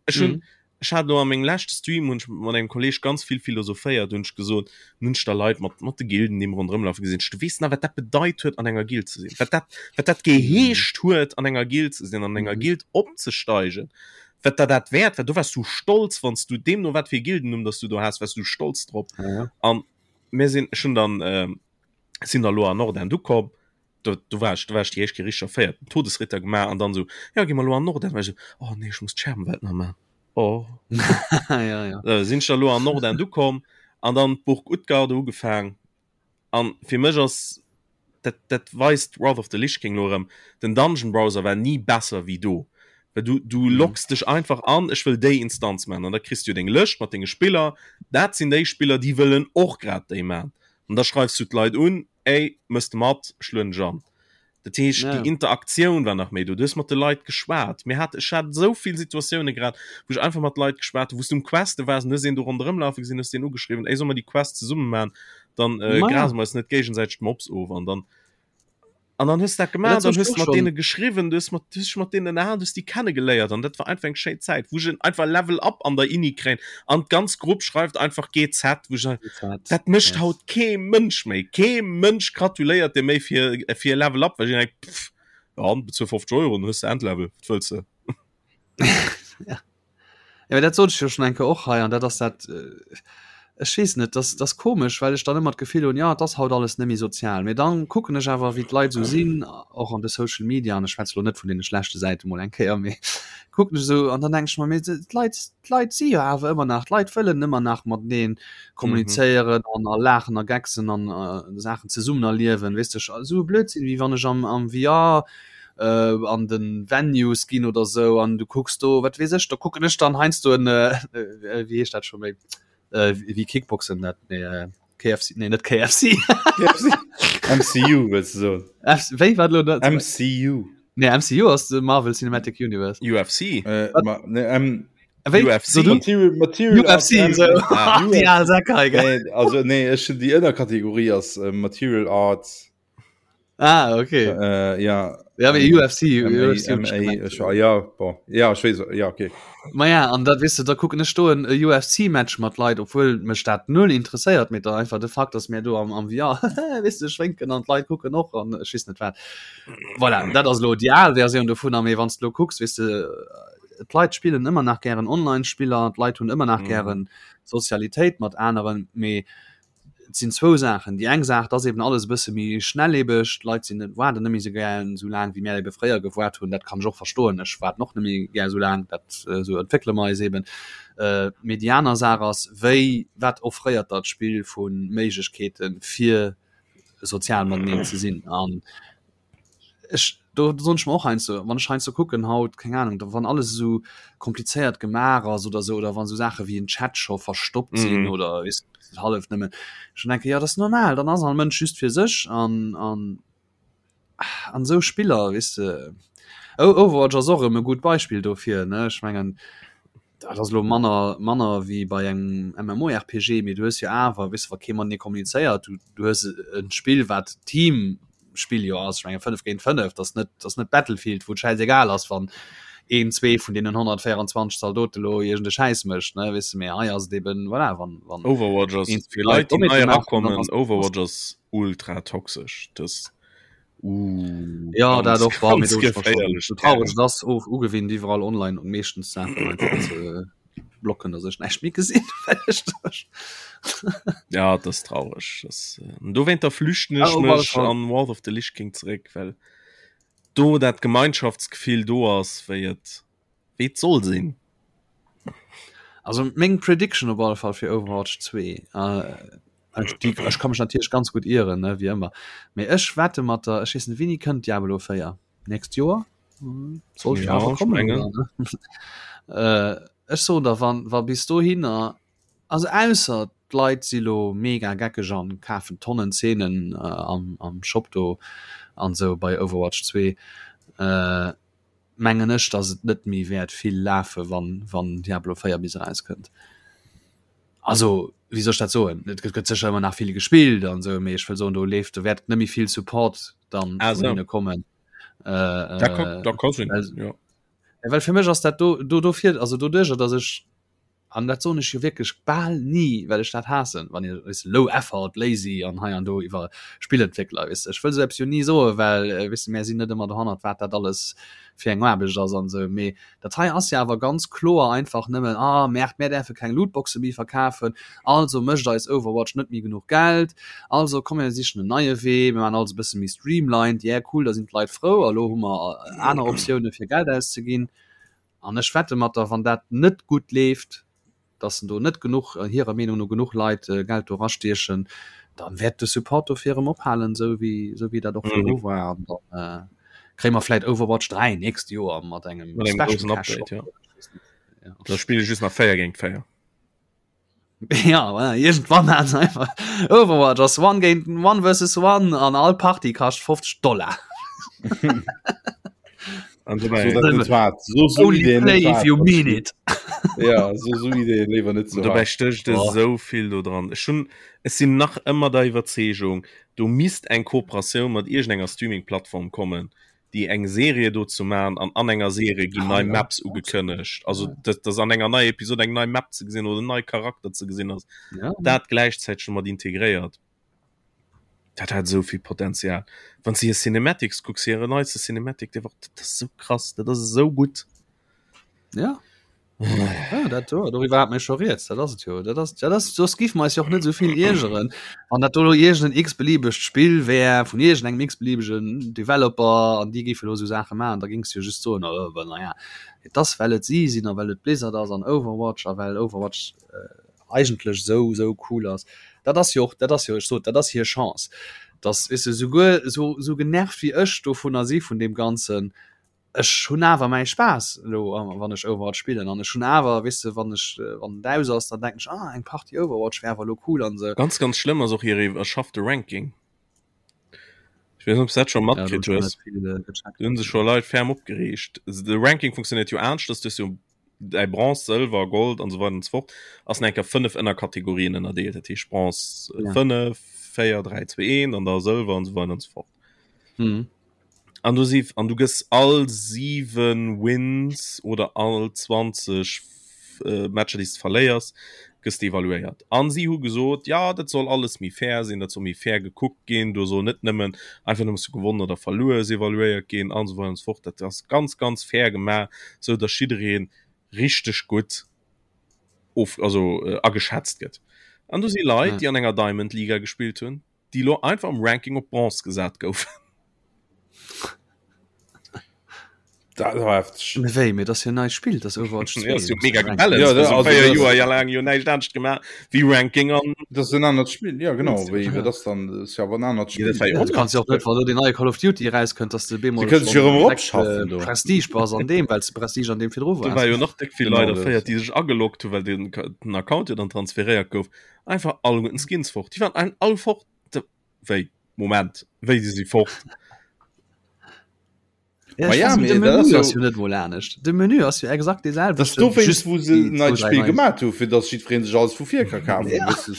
Ech hunn, Mhm. Ech hat elo a mengem leschte Stream hunn ech mat engem Kolleg ganz vill philosophéiert, hunn ech gesot, hunn ech da Leit mat mat de Gilden déi ronderëm lafe gesinn, du weess nach wat dat bedeit huet an enger Guild ze sinn, wat dat wat dat geheescht huet an enger Guild ze sinn, an enger Guild opzesteigen, wat der dat wäert war, do waars du stolz wann s du deemno wat fir e Gildennumm dass du do has, waars du stolz drop. An mir sinn, ech hunn dann sinn da lo an Nordend ukomm, do, do war ech, do war ech déi éischt Kéier richteg erféiert, den Todesritter gemaach an dann esou, jo, gi mer elo an Nordend. War ech esou, oh nee, ech muss d'Scherbenwelt nach maachen. Oh. ja, ja. Äh, sinn ech da lo an Nordend ukomm an dann d'Burg Utgarde ugefaang. An fir mech ass dat, dat weist Wrath of the Lich King lo erëm, den Dungeon Browser war ni besser wéi do. Well du, du Mhm. locks dech einfach an, ech wëll déi Instanz maachen. An da kriss du deng Lëscht mat denge Spiller. Dat sinn déi Spiller, déi wëllen och grad déi maachen. An da schreifs du d'Leit un, Ey, mëss de mat, ech lueden dech an. Dat heescht, Ja. déi Interaktioun war nach méi do. Du hues mat de Leit geschwat. Mir hat, ech hat esou vill Situatioune grad, wou ech einfach mat Leit geschwat hunn, wou s du um Queste waars an hues een do ronderëm lafe gesinn, hues deen ugeschriwwen, Ey, solle mer déi Quest zesumme maachen? Dann äh, Ma ja. grase mer eis net géigesäiteg d'Mobs of. An dann, an dann hues du dat Ja, gemaach, dat dann sot hues ech du och mat schon. deene geschriwwen, du hues mat, du hues dech mat deenen ënnerhalen, du hues déi kennegeléiert an dat war einfach eng schéin Zäit, wou ech en einfach Level up an der Ini kréien an d'ganz Grupp schreift einfach GZ, wou ech sagen, GZ, dat mécht yes. haut kee Mënsch méi. Kee Mënsch gratuléiert dir méi fir, fir e Level up, well ech denken, pff, ja, bezuel 50 Euro, dann hues de Endlevel, wat wëlls de? Ja. Ja, dat sot ech jo schon eng Kéier och hei an dat ass dat äh, ech weess net, das das komesch, well ech dann ëmmer d'Gefill hunn, ja, et ass haut alles net méi sozial. Mee dann kucken ech awer wéi d'Leit esou sinn, och an de Social Media, an ech schwätze lo net vun deene schlechte Säite mol eng Kéier, mee kucken ech esou an dann denke ech mer, mee d'Leit d'Leit si jo awer ëmmer nach, d'Leit wëllen ëmmer nach matenee kommunizéieren an a laachen a gecksen an äh, Saachen zesummen erliewen, weess de, esou e Blödsinn wéi wann ech am am VR äh, an den Venues ginn oder sou an du kucks do wat weess ech, do kucken ech dann heiansdo en äh, äh, wéi heescht dat scho méi äh, wéi Kickboxen dat nee äh, KFC nee net KFC KFC MCU wëlls du soen F wéi wat lo dat MCU nee MCU ass de Marvel Cinematic Universe UFC äh, ma, ne, M Wéi UFC. so du Material, Material UFC Arts, so Ah. déi al Säck hei gell Nee, also nee, ech déi Ënnerkategorie ass äh, Material Arts Ah, okay. Äh, ja. Ja, mee UFC, MA, UFC hunn ech MA, gemengt. ech, ja, bon. Ja, ech weess, ja, okay. Ma ja, an dat weess de, da kucken ech do en UFC-Match mat Leit, obwuel mech dat null interesséiert, mee da einfach de Fakt, dass mär do am, am VR, weess de, schwénken an d'Leit kucken och an ech weess net wat. Voilà, dat ass elo déi al Versioun dovunner, mee wann s de elo kucks, weess de, d'Leit spillen ëmmer nach gären Online-Spiller, d'Leit hunn ëmmer nach Mhm. gären Sozialitéit mat aneren, mee Et sinn zwou Saachen. Déi eng Saach, et ass eben alles e bësse méi schnellebeg, d'Leit sinn net, waarden net méi esou gär esou laang, wéi mär ebe fréier gewaart hunn. Dat kann ech och verstoen, ech waarden och net méi gär esou laang, dat, esou entwéckele mer eis eben. Mee déi aner Saach ass, wéi, wat offréiert der d'Spill vu Méiglechkeete fir sozial mateneen ze sinn? An ech do soen ech mer och heiansdo, wann ech heiansdo kucken haut, keng Ahnung, da wann alles esou komplizéiert gemaach ass oder esou, oder wann esou Saache wéi en Chat scho verstoppt sinn Mhm. oder weess de hallef nëmmen, ech dann denke jo dat ass normal, dann ass all Mënsch just fir sech an an an esou Spiller weess de. Overwatch ass och erëm e gutt Beispill dofir ne, ech mengen dat ass elo manner manner wéi bei engem MMORPG, mee du hues jo awer, weess de, wa kee matenee kommunizéiert, du du hues e Spill wat Team. Spill jo ass. Ech menge 5 géint 5, dat ass net, dat ass net Battlefield, wou et schäisegal ass, wann een, zwee vun deenen 124 Zaldote lo iergend e Schäiss mécht, ne, weess de. Mee hei ass et eben, voilà, wann, wann Overwatch ass een, zwee fir Leit, Leit déi nei Dommheete maachen, dann erakommen, ass Overwatch ass ultra toxesch. Das uh, Ja, dat ganz, och war mir ganz do schon geféierlech so traurig Terrain. das och ugewinnt iwwerall online und meeschtens Sachen einfach ze blocken, dass ech näischt méi gesinn well ech das Ja, das ist traurig. Das, äh, dowéinter flüchten Ah, ech op alle mech Fall. an Wrath of the Lich King zeréck, well do dat Gemeinschaftsgefill do ass, wéi et wéi et soll sinn. Also meng Prediction op alle Fall fir Overwatch 2 äh, ech, die, ech kann mech natierlech ganz gut ieren ne, wie ëmmer. Mee ech wette mat der ech weess net wéini kënnt Diablo 4 nächst Joer hm, sollt Ja, awer ech kommen mengen. oder, ne? äh, ech soen der wann wa bis dohinner also ausser d'Leit si lo mega geckeg an kafen Tonnen Zeenen äh, am, am Shop do an sou bei Overwatch 2 äh, mengen ech, dass et net méi wäert vill lafe wann wann Diablo 4 bis erauskënnt. Also wéi soll ech dat soen? Et gëtt sécher ëmmer nach vill gespillt an esou, mee ech wëll soen do leeft do wäert net méi vill Support dann Ah, vun so. hinne kommen. Äh, Da kann, da kann sinn, well, ja. well fir mech ass dat do do dofir also doduercher, dass ech An dat soen ech jo wierklech bal ni, well ech dat haassen, wann een, weess de, low effort, lazy an hei an do iwwer Spillentwéckler, weess de. Ech wëll esou eppes jo ni soen, well, weess de, mär sinn net ëmmer dohannert, wat dat alles fir eng Aarbecht ass an esou. Mee dat hei ass jo awer ganz kloer einfach nëmmen, Ah, Merde, mär däerfe keng Lootboxe méi verkafen, also mécht eis Overwatch net méi genuch Geld, also komm mir sichen en neie Wee, mir maachen alles e bësse méi streamlined, yeah, cool, da sinn d'Leit frou a lo hu mer aner Optioune fir Geld auszeginn. An ech wette mat der, wann dat net gutt leeft, dass en do net genuch, hirer Meenung no genuch Leit Geld do erastiechen, dann wäert de Support dofir erëm ophalen, esou wéi, esou wéi dat och virdru war. An dann kréie mer vläit Overwatch 3 nächst Joer mat engem Mat engem Special groussen Cash Update, Shop. ja. Da spille just nach 4 géint 4. Ja, voilà, irgendwann hat einfach Overwatch ass one géint one versus one an all Party kascht 50 Dollar. An So, dobäi, dat net waart. So, so Only Ideen play net if waart. you mean it. Ja, so, so Ideen léiwer net ze dobäi waart. stécht Oh. esou vill do dran. Ech hunn, ech sinn nach ëmmer der Iwwerzeegung, do misst eng Kooperatioun mat iergendenger Streaming-Plattform kommen, déi eng Serie dozou man an an enger Serie ginn nei ah, ja. Maps ugekënnegt. Also dass, dass an enger neier Episode eng nei Map ze gesinn oder nei Charakter ze gesinn ass. Ja. Dat gläichzäiteg mat integréiert. Dat hat esou vill Potenzial. Wann s de hir Cinematics kucks, hire neiste Cinematic, dee war, dat ass esou krass, dat ass esou gutt. Ja. Ja, dat do, doriwwer hat mir scho rieds, dat ass et jo. Dat ass, dat ass, soss giff mer eis jo och net esou vill iergeren, wann dat do lo iergend en x-beliebegt Spill wär vun iergendengem x-beliebegen Developer an déi géife lo esou Saache maachen, da géings du jo just soen, oh, ben naja, et ass well et si sinn a well et Blizzard ass an Overwatch a well Overwatch eigentlech esou, esou cool ass. Dat ass jo och, dat ass jo, ech sot, dat ass hir Chance, dass, weess de, souguer esou, esou genervt wéi ech dovunner si vun deem Ganzen, ech hunn awer mäi Spaass elo wann ech Overwatch spillen an ech hunn awer weess de wann ech wann et aus ass, dann denken ech ah eng Partie Overwatch wär awer elo cool an esou. Ganz ganz schlëmm ass och hir iwwerschaffte Ranking. Ech weess net ob s dat scho Ja, do hunn matkritt ech nach hues. net vill gecheckt. Do hunn sech scho Leit ferm opgereegt. De Ranking funktionéiert jo anescht, dass du hues jo däi Bronze, Sëlwer, Gold an esou weider an esou fort ass nach eng Kéier 5 Ënnerkategorien ënnerdeelt. Dat heescht Bronze Ja. 5, 4, 3, 2, 1 an da Sëlwer an esou weider an esou fort. Mhm. An du si an du gëss all 7 Wins oder all 20 äh, Matcher déi s de verléiers, gëss de evaluéiert. An si hu gesot, ja dat soll alles méi fair sinn, dat soll méi fair gekuckt ginn, do soll net nëmmen einfach nëmmen s du gewonnen oder verluer hues evaluéiert ginn an esou weider an esou fort. Dat ass ganz ganz fair gemaach, sou datt jidderee richteg gutt of also äh, ageschätzt gëtt. An do si Leit, Ja. déi an enger Diamond Liga gespillt hunn, déi lo einfach am Ranking op Bronze gesat goufen. Dat war hefteg. Mee wéi, mee dat ass jo neit Spill, dat ass Overwatch 2. Ja, ass jo mega Ranking. gebalanced. Ja, Also also 4 das- Joer ja laang jo näischt anescht gemaach wéi Ranking an Dat ass en anert Spill, ja genau. Wéi wéi das dann das ist ja awer en anert Ja, dat Spill. war jo Ja, du kanns jo och net, wann do den neie Call of Duty erauskënnt, dass de bemol Sie kënnen sech jo erëm direkt, eropschaffen äh, do. Prestige bass an deem, well s de Prestige an deem virdru Do war waars. jo nach déck vill Genau Leit das. erféiert, déi sech ageloggt hu well den, den Account jo dann transferéiert gouf. Einfach alleguerten Skins fort. Déi waren ein- all fort. Wéi? Moment, wéi déi si fort? Ja, Ma ech ja, weiß nicht, mee de dat Menü ass jo- ass jo net mol anescht. De Menü ass jo exakt dee Das selwechten, dowéinst just wou se déi en neit zwou, dräi Spill nei. gemaat hu fir dass jiddwereen sech alles vu vir ka kafen. Ja. Weess de.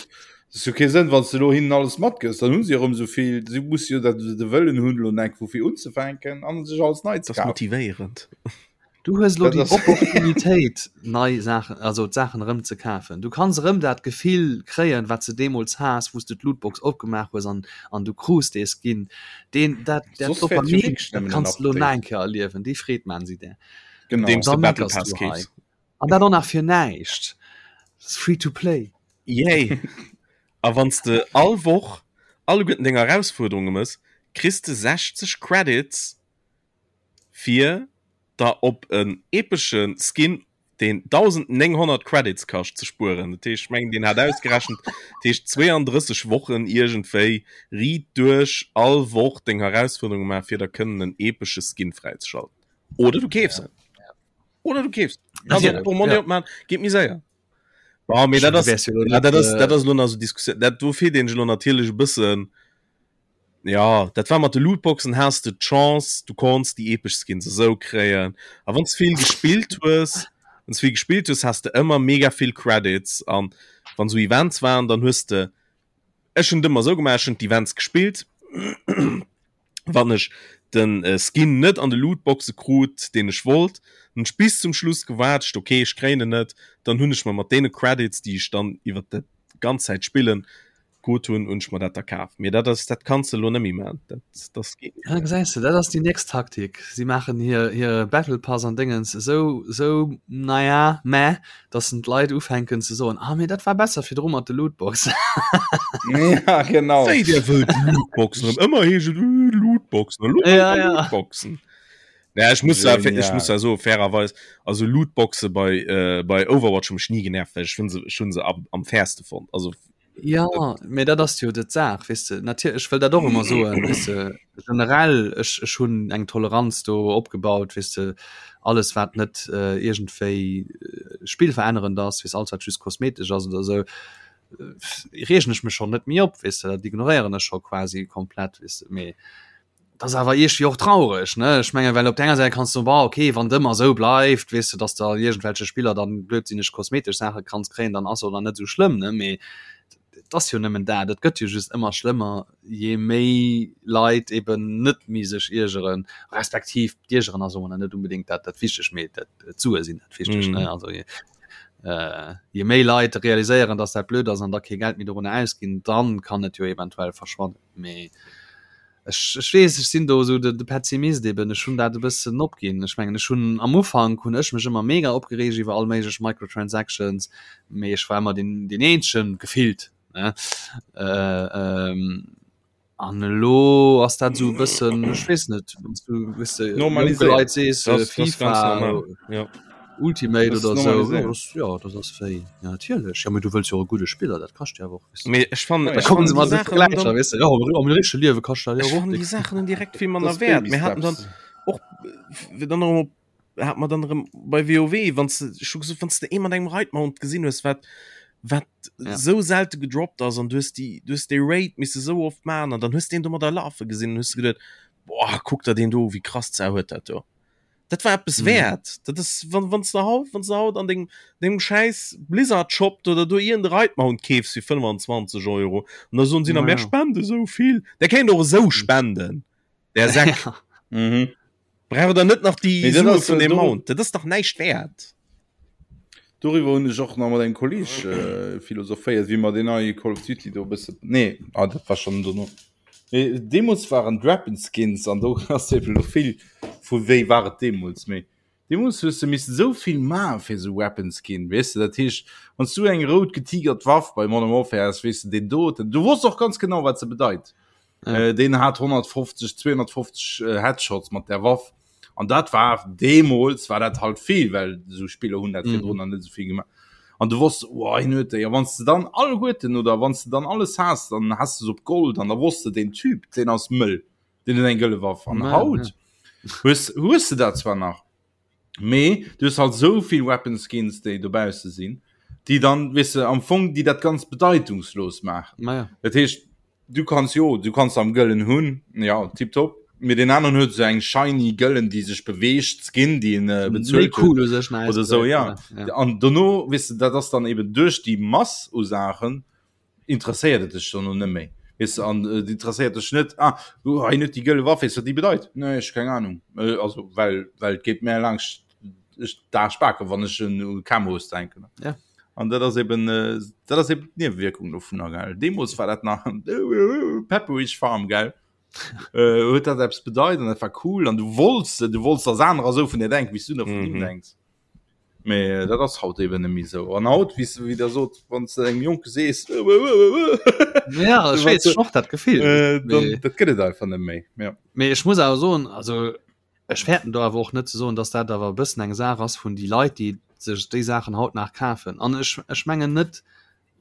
Das huet kee Sënn, wann s de elo hinnen alles matgëss, dann hu si erëm esou vill, si musse jo dat de Wëllen hunn, elo enk vu vir unzefänken an sech alles nei ze Das ass kafen. motivéierend. Du hues elo Dat déi ass Opportunitéit, nei Saachen, also d'Saachen erëm ze kafen. Du kanns erëm dat Gefill kréien, wat s de deemools has, wou s de d'Lootbox opgemaach hues an, an du krus dee Skin. Deen, dat, dat Soss wäert jo Dopamin, wierklech dat nëmmen en kanns de elo Update. nach eng Kéier erliewen. Déi Freed maachen si där. Genau. Andeems Da de Battle meckers Pass du hei. keefs. An dat och nach fir näischt. Dat ass free to play. Yay! A wann s de all Woch alleguerten deng Erausfuerderunge mëss, kriss de 60 Credits fir der op en epesche Skin, deen 1.900 Credits kascht, ze spueren. Dat heescht, ech mengen, deen hat ausgerechent, dat heescht 32 Wochen iergendwéi riit duerch all Woch deng Erausfuerderunge maachen, fir der kënnen en epesche Skin fräizeschalten. Oder du keefs en. Oder du keefs. Also, Portmonni opmachen, geet méi séier. Bon, mee dat ass, ja, dat ass, dat ass elo nach esou Diskussioun. Dat do feelt een elo natierlech e bëssen. Ja, dat war mat de Lootboxen, has de d'Chance, du konns déi epesch Skins esou kréien. A wann s vill gespillt hues, wann s vill gespillt hues, has de ëmmer mega vill Credits. An wann esou Events waren, dann hues de, ech hunn et ëmmer esou gemaach, ech hunn d'Events gespillt, wann ech den äh, Skin net an de Lootboxe krut, deen ech wollt, hunn ech bis zum Schluss gewaart, okay, ech kréien en net, dann hunn ech mer mat deene Credits, déi ech dann iwwer dat ganz Zäit spillen krut hunn, hunn ech mer dat da kaf. Mee dat ass, dat kanns de elo net méi maachen. Dat, dat geet net. Ja, gesäis de, dat ass déi nächst Taktik. Si maachen hir, hire Battle Pass an Déngens esou, esou, naja, meh, dass en d'Leit ufänken ze soen, ah mee dat war besser virdru mat de Lootboxen. Ja, genau. Wéi der wëllt Lootboxen erëm. Ëmmer heescht et, äh, Lootboxen, elo wëllt Ja, der ja. Lootboxen. Naja, ech muss ja, ech muss Genial. ja soen, fairerweis, also Lootboxe bei, äh, bei Overwatch hu mech ni genervt, well ech hunn se, ech hunn se am, am fairste fonnt. Also, Ja, mee dat ass jo dat Saach, weess de. Natierlech, ech wëll dat och ëmmer soen, weess de, generell, ech, ech hunn eng Toleranz do opgebaut, weess de, alles wat net äh, iergendwéi äh, spillverännerend ass, weess, alles wat just kosmetesch ass oder esou, äh, reegen ech mech schonn net méi op, weess de, dat ignoréieren ech scho quasi komplett, weess de, mee Dat ass awer iergendwéi och traureg, ne? Ech mengen, well op der enger Säit kanns du soen, bon, okay, wann et ëmmer esou bleift, weess de, dass de iergendwelche Spiller dann blödsinneg kosmetesch Saache kanns kréien, dann ass och dann net esou schlëmm, ne? Mee et ass jo nëmmen dat, et gëtt jo just ëmmer schlëmmer, je méi Leit eben net méi sech iergeren, respektiv d'Iergeren ass och net unbedéngt dat dat Wichtegt, mee dat d'Sue sinn dat Wichtegt, ne? Also je je méi Leit realiséieren, dass dat blöd ass an da kee Geld méi dorunner ausginn, dann kann et jo eventuell verschwannen, mee Ech, ech weess, ech sinn do esou de, de Pessimist eben. Ech hunn dat e bëssen opginn. Ech mengen, ech hunn am Ufank hunn ech mech ëmmer mega opgereegt iwwer all méiglech Microtransactions, mee ech war ëmmer deen, deen eenzegen gefillt, ne? Äh, ähm, an elo ass dat esou e bëssen, ech weess net, wann s du, weess de, jonke Normaliséiert. Leit sees, Das, das ist ganz FIFA, normal. Ja. Ultimate Das oder ist sou, ja, normaliséiert. das, ja, das ass wéi, ja, natierlech. Ja, mee du wëlls jo och e gudde Spiller, dat kascht jo awer och, weess de. Mee ech fannen, Ja, Da ech kommen fannen se déi mat de Saachen hunn Vergläicher, dann, weess de, ja, am am richtege Liewe kascht dat jo ech och fannen déi déck. Saachen hunn direkt vill manner Das Wäert. Baby Mir haten dann Steps. och, äh, dann erëm op, hat mer dann erëm bei WoW, wann s de, ech hu gesot, wann s de ee mat engem Raid Mount gesinn hues, wat, wat Ja. sou selte gedroppt ass an du hues déi, du hues dee Raid misse sou oft maachen an dann hues de een domadder lafe gesinn an hues de geduet, boah, kuck der deen do u, wéi krass d'Sau huet dat do. Dat war eppes Mhm. wäert. Dat ass, wann, wann s de haut, wann s de haut an dengem, dengem schäiss Blizzard Shop oder do iergend e Raid Mount keefs fir 25 Euro an da soen si nach, Ja, mär ja. spende sou vill. Der kéint och esou spenden, der Säck. Ja. Mhm. Braucht der net nach déi Mee dat Sue ass, vun äh, deem do- Mount. Dat ass dach näischt wäert. Doriwwer hunn ech och nach mat engem Kolleg äh, philosophéiert, wéi mer deen neie Call of Duty do e bësse. Nee, ah, dat war schonn dono. Mee deemools waren d'Weapon Skins an do ass eben elo vill vu wéi war et deemools. Mee deemools hues de missen esou vill maache fir esou Weapon Skin, weess de. Dat heescht, wann s du eng rout getigert Waff bei Modern Warfare has, weess de deen doten, du wosst och ganz genau wat se bedeit. Ja. Äh, deen hat 150, 250 äh, Headshots mat der Waff. An dat war deemools war dat halt vill, well esou Spiller hunn dat virdrun mhm. net esou vill gemaach. An du wosst oh, hien huet déi. A wann s de dann alleguerten oder wann s de dann alles has, dann has du se op Gold an da wosst de den Typ, deen ass mëll, deen huet eng gëlle Waff. An Ja, haut hues, hues de dat zwar nach, mee du hues halt sou vill Weapon Skins, déi dobausse sinn, déi dann, weess de, am Fong, déi dat ganz bedeitungslos maachen. Ma ja. Dat heescht, du kanns jo, du kanns am Gëllen hunn, ja, tipptopp, mee deen aneren huet esou eng shiny Gëllen, déi sech beweegt, Skin, déi en Méi bezuelt huet cool u sech nach oder sou, ja. Ja. An dono, weess de, dat ass dann eben duerch déi Mass u Saachen. Interesséiert et dech dann och net méi. Weess de, an et interesséiert dech net, ah, du, hei huet déi gëlle Waff, weess wat déi bedeit? Nee, ech keng Ahnung. Also well, well et geet mär laangscht d'Aarsch baken, wann ech un Camos denken. Ja. An dat ass eben, dat ass eben d'Niewewierkung dovunner, gell. Deemools war dat nach Pepperidge Farm, gell. Huet dat eppes bedeit an dat war cool an du wollts, du wollts, dass anerer esou vun dir denken, wéi s du da vun him denks. Mee dat ass haut eben net méi esou. An haut, wéi s, wéi der sot, wann s de engem Jonke sees, Ja, ech weess, ech och dat Gefill. Äh, dann, dat gëtt et einfach net méi. Ja. Mee ech muss awer soen, also ech fäerten do awer och net ze soen, dass dat awer e bëssen eng Saach ass vun déi Leit, déi sech déi Saachen haut nach kafen. An ech, ech mengen net,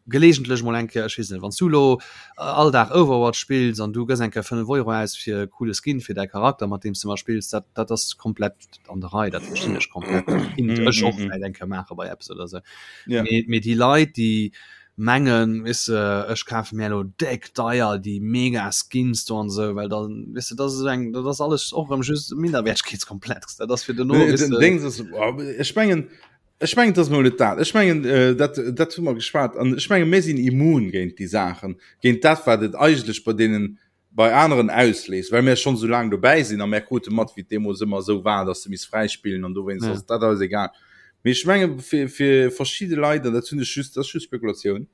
gelegentlech mol eng Kéier, ech weess net, wann s du elo all Dag Overwatch spills an du gëss eng Kéier 5 Euro aus fir e coole Skin fir däi Charakter, mat deem s de ëmmer spills, dat, dat ass komplett an der Rei, dat verstinn ech komplett. Dat kinnt ech och vläicht eng Kéier maache bei eppes oder esou. Mee, mee déi Leit, déi mengen, weess de, ech kafe mir elo déck deier déi mega Skins do an esou, well dann, weess de, dat ass esou eng, dat ass alles och erëm just e Minderwertegkeetskomplex. Dat ass fir duerno, weess de. Dings ass, ech mengen, Ech mengen, et ass mol net dat. Ech mengen, dat, dat hu mer geschwat. An ech mengen, mir sinn immun géint déi Saachen, géint dat, wat et eigentlech bei deenen, bei aneren ausléist, well mir schonn esou laang dobäi sinn a mir krute mat, wéi et deemools ëmmer esou war, dass se misst fräispillen an dowéinst ass dat eis egal. Mee ech menge fir, fir verschidde Leit, an dat hunn ech just, dat ass just Spekulatioun,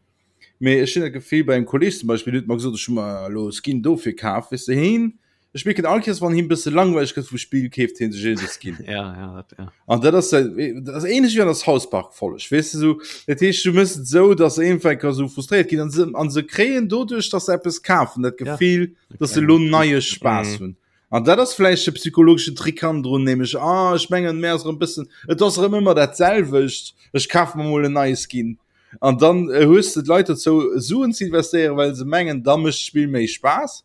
mee ech hunn dat Gefill bei engem Kolleeg zum Beispill, deen huet mer gesot, ech hu mer elo e Skin dofir kaf, weess de, heen Ech mierken all Kees wann him bësse langweileg gëtt vum Spill keeft hien sech een Skin. Ja, ja, dat, ja. An dat ass dat ass ähnlech wéi an der South Park Folleg weess de sou dat heescht du mëss et sou dass se iergendwann ka sou frustréiert ginn an se an se kréien doduerch dass se eppes kafen dat Gefill ja. dass se lo neie Spaass mhm. hunn. An dat ass vläicht de psychologeschen Trick hannendrun nämlech ah ech mengen mär ass erëm bëssen et ass erëm ëmmer dat selwecht ech kaf mer mol en neie Skin. An dann äh, hues de d'Leit dozou Suen ze investéieren, well se mengen da mécht d'Spill méi Spaass.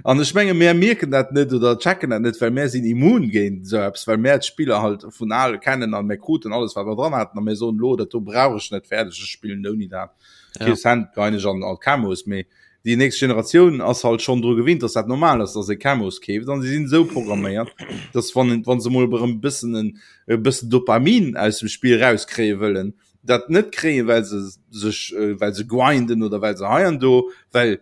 An ech menge mär mierken dat net oder checken dat net, well mär sinn immun géint esou eppes, well mär d'Spiller halt vun al kennen an mär kruten alles wat mer dran haten a mär soen elo dat do brauch ech net fäerdeg, ech spillen ouni dat. Ja. Kee Cent geien ech an an Camos, mee déi nächst Generatioun ass halt schonn dru gewinnt, dass dat normal ass, dass ee Camos keeft an si sinn esou programméiert, dass wann wann se mol erëm e bëssen en e bëssen Dopamin aus dem Spill rauskréie wëllen, dat net kréien, well se sech well se grinden oder well se hei an do, well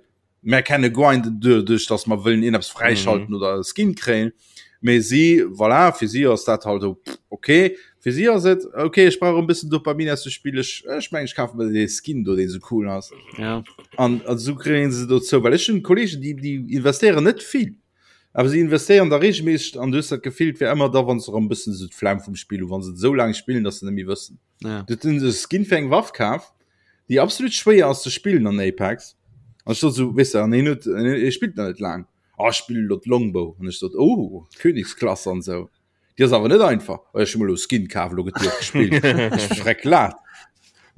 Mär kenne grinden duerch dass mer wëllen een eppes fräischalten mm. oder e Skin kréien. Mee si voilà, fir si ass dat halt okay. Fir si ass et okay, ech brauch e bëssen Dopamin aus dem Spill. Ech, ech meng ech kafe mir dee Skin do, deen sou cool ass. Ja. An an sou kréien se dozou, well ech hunn Kollegen, déi déi investéieren net vill. Awer si investéieren da regelméisseg an du hues dat Gefill, et wär ëmmer da wann se erëm bëssen esou d'Flemm vum Spill hu, wann se et esou laang spillen, dass se net méi wëssen. Ja. Du huet e Skin fir eng Waff kaf, déi absolut schwéier ass ze spillen an Apex. An ech sot so, weess de, an hien huet, hie spillt nach net laang. Ah, ech spillen elo d'Longbow. An ech sot, oh, Königsklasse an esou. Déi ass awer net einfach. Oh, ech hu mer elo e Skin kaf, elo gëtt déi och gespillt. Ech schreck laat.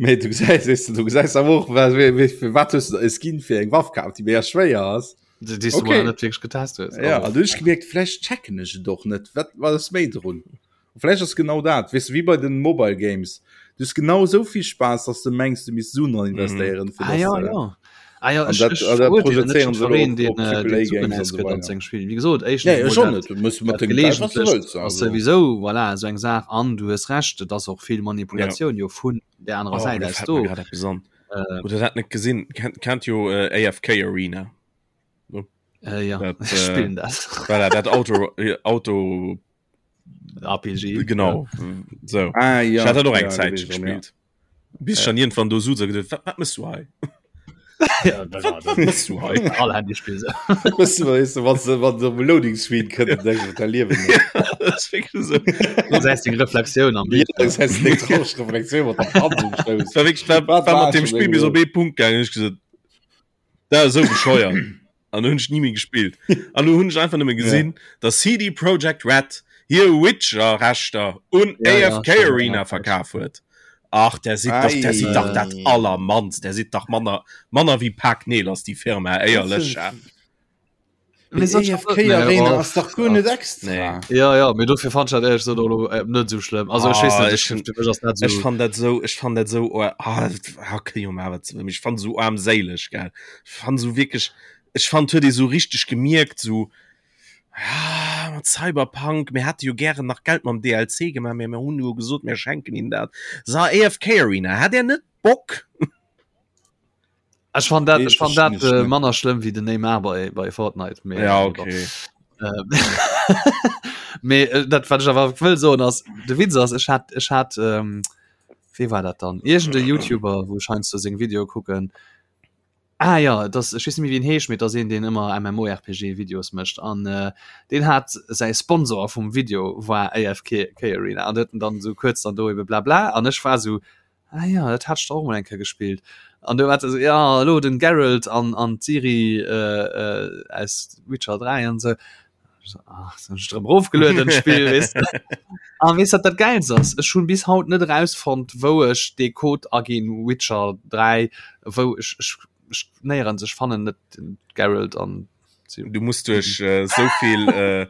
Mee du gesäis, weess de, du gesäis awer och, wa, wéi, wéi, fir wat hues de e Skin fir eng Waff kaf, déi mega schwéier ass. Déi, déi s du Okay. mol net wierklech getest hues. Ja, Also, an du hunn ech gemierkt, vläicht checken ech et och net. Wat, wat ass méi drun? Vläicht ass genau dat, weess de, wéi bei den Mobile Games. Du hues genau esou vill Spaass, dass de mengs, du misst Suen dran investéieren, fir Ah dass ja, de. ja. Ah ja, An ech, dat, ech an dat verurteelen net projezéieren se elo jiddwereen, op, deen, op äh, Triple deen A Suen Games an esou ausgëtt an weider. seng Spill. Wéi gesot, éischtens Nee, ech emol och dat, net. Du muss mat dat dengem Geld, wat du geleegentlecht wëlls, ass also. souwisou, voilà, esou eng Saach. An du hues Recht, et ass och vill Ja. Manipulatioun jo vun där anerer Oh, Säit lo aus fält mer do. grad eppes an. Äh, Hutt der dat net gesinn? Kennt, kennt jo äh, AFK Arena. äh, ja, Dat, ech äh, spillen dat. voilà, dat Auto, Auto RPG. Genau so. Ah, ja. Ich hatte noch eng ja, Zeit gewesen, ja. gespielt. Bis schon irgendwann do so gedacht, wat, wat mëss du hei? Ja, Wat, wat mëss du hei? All Handyspill so. Weißt du, weißt du, was, was so Loading Screen kënnt, denkst du, da liewen. Das ist wirklich so. Das heißt, die Reflexioun am Ja, Bild. das heißt, eng traureg Reflexioun mat der Hand um Stouss. War wirklich, war, Wat war war mat dem schon Spiel bis irgendwo? op ee Punkt gaangen, ech gesot, dat ass esou bescheuert. An hunn ech ni méi gespillt. An du hunn ech einfach nëmme gesinn, ja. dass CD Projekt Red hir Witcher-Rechter un Ja, ja, AFK stimmt, Arena ja. verkaf huet. Ach, der sidd dach, der sidd dach dat allermannst, der sidd dach manner, manner wéi Pak Neel ass déi Firma, éierlech. Ja. Mee soll ich AFK nee, Arena oh, ass dach guer net extra. Nee. Ja, ja, mee dofir fand ich dat ehrlich gesagt och lo, äh, net sou schlëmm. Also ech weess Ah, net, ech ech, fir mech ass dat Ech sou. fand dat sou, ech fand dat sou, oh, ah, okay, jo, ma wat, ech fand sou armséileg, gell. Ech fand sou wierklech, ech fand huet ee sou richteg gemierkt, sou, ah, mat Cyberpunk, mir hätte jo gären nach Geld mam DLC gemaach, mä mir hunn jo gesot, mir schenken ihnen dat. So, AFK Arena, hat der net Bock? Ech fand dat, ech fand dat äh, manner schlëmm wéi den Neymar bei, bei Fortnite. Mee, ja, okay. Mee äh, dat wat ech awer wëll soen ass, de Witz ass, ech hat, ech hat ähm, wee war dat dann? Iergend e YouTuber, wou ech heiansdo seng Videoe kucken. Ah ja, das, ech weess net méi wéi en heescht, mee et ass een, deen ëmmer MMORPG-Videos mécht an äh, deen hat säi Sponsor vum Video war AFK Arena an huet en dann esou kuerz dann do ebe blabla an ech war esou, Ah ja, dat hat ech och mol eng Kéier gespillt. An du war se ja elo den Geralt an an d'Ciri äh, äh, aus Witcher 3 an sou. Ach, so ech drëm rofgelueden Spill weess de. An weess wat dat Gäilst ass? Ech hunn bis haut net erausfonnt, wou ech dee Code aginn Witcher 3, wou ech ech ech néierens ech fannen net den Geralt an Du muss duerch äh, souvill äh,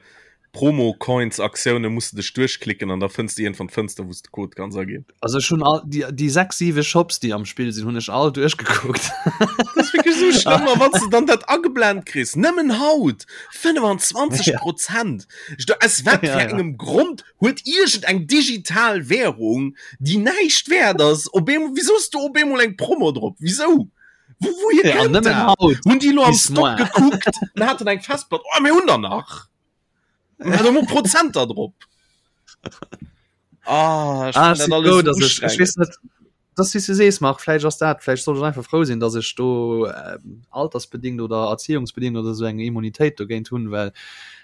Promo-Coins-Aktioune muss du dech duerchklicken an da fënns du iergendwann d'Fënster, wou s de Code kanns aginn. Also ech hunn all déi, déi 6, 7 Shops, déi am Spill sinn, hunn ech all duerchgekuckt. Dat ass wierklech esou schlëmm, a wann s de dann dat ageblent kriss, nëmmen haut 25 Prozent. Ech do, aus wat fir engem Grond huet iergend eng digital Währung, déi näischt wäert ass, op eemol, wisou ass do op eemol eng Promo drop? Wisou? Wo, wouhier Ja, kënnt nëmmen dat? haut. Hunn déi lo am Bis Stock moar. gekuckt an haten eng Festplatt? Oh, mir hunn der nach. Mir hat emol Prozenter drop. Ah, ech Ah, fannen ech dat si alles frou, esou dass ech, ech weess ustrengend. net, dass wéi s du sees, Marc, vläicht ass dat, vläicht soll ech einfach frou sinn, dass ech do ähm, altersbedingt oder erziehungsbedingt oder sou eng Immunitéit dogéint hunn, well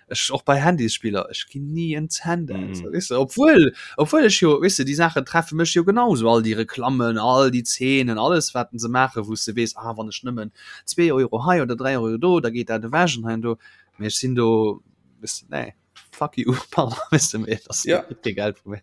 ech och bei Handysspiller, ech ginn ni en Cent aus, Mhm. weess de, obwuel, obwuel ech jo, weess de, déi Saachen treffe mech jo genauso, all déi Reklammen, all déi Zeenen, alles wat se maachen, wou s de weess, ah wann ech nëmmen zwee Euro hei oder dräi Euro do, da geet dat ewech an hei an do, mee ech sinn do, weess de, nee, fuck you, pardon, weess de, mee et ass Ja. kee Geld vu mir.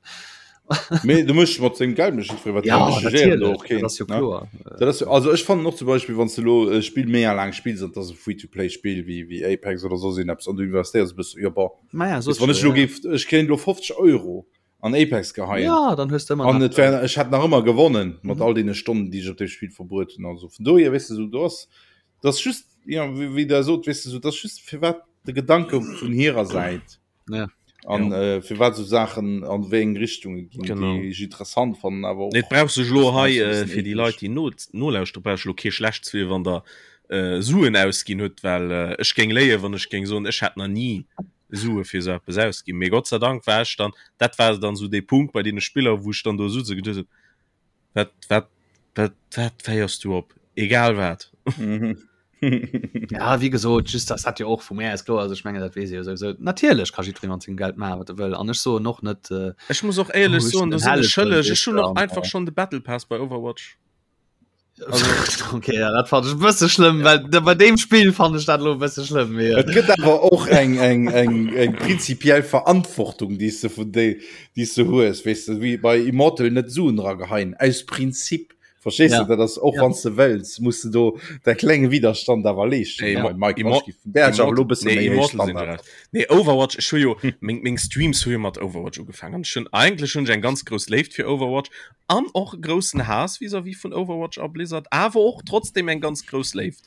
Mee du méchs mat sengem Geld mécht jiddweree wat Ja, hien wëll, ech jugéieren do natierlech, och keen, dat ass jo ne? kloer. Dat ass jo, also ech fannen och zum Beispill, wann s de elo e Spill méi laang spills an et ass e Free-to-play-Spill wéi wéi Apex oder soss een eppes an du investéiers e bësse, jo bon, Maja, weess, wann ech elo géif, ech kéint elo 50 Euro an Apex geheien Ja, dann hues de ëmmer an nach et wär, ech hätt nach ëmmer gewonnen mat Mhm. all deene Stonnen, déi ech op deem Spill verbruet hunn. Also vun dohier, weess de, sou do ass, dat ass just, jo, wéi wéi Der sot, weess de, sou dat ass just firwat de Gedanke vun hirer Säit. Ja. An äh, firwat sou Saachen an wéi eng Richtunge ginn, Genau. déi ech interessant fannen, awer och Nee, et brauch sech elo hei e äh, bëssen fir déi eeklech. Leit, déi no, nolauschteren, brauch ech elo kee schlecht ze wier, wann der äh, Suen ausginn hutt, well äh, ech géing léien, wann ech géing soen, ech hätt nach ni Sue fir esou eppes ausginn. Mee Gott sei Dank war ech dann, dat war dann esou dee Punkt bei deene Spiller, wou ech dann do sutze geduet hunn, wat, wat, wat, wat féiers du op? Egal wat. Ja, wéi gesot, just das hat jo och vu mär aus kloer, also ech mengen dat weess ee jo souwisou. Natierlech ka jiddweree mat sengem Geld maachen, wat e wëll an ech soen och net, äh, Ech muss och éierlech oh, ech soen, sinn do en sinn ech Helleg, schëlleg. weess Ech hunn de, och an, einfach äh, schonn de Battle Pass bei Overwatch. Also, okay, ja, dat fand ech e bësse schlëmm, well da- bei deem Spill fand ech dat elo e bësse schlëmm. Mee, Et gëtt awer och eng, eng, eng, eng prinzipiell Verantwortung, déi s de vun déi, déi s de hues, weess de, wéi bei Immortal net Suen erageheien, aus Prinzip. Verstees Ja. de, dat ass och Ja. wann s de wëlls, muss de do däi klenge Widerstand awer leeschten. Nee, Ja, Immo- Mike, Immo- ech gi vun där awer elo e bësse nee, méi héich Immortal sinn Standard. gerecht. Nee, Overwatch, ech hu jo, meng, meng Streams hu jo mat Overwatch ugefaangen. Ech hunn eigentlech hunn ech eng ganz grouss Léift fir Overwatch an och e groussen Haass vis-à-vis vun Overwatch a Blizzard, awer och trotzdem eng ganz grouss Léift.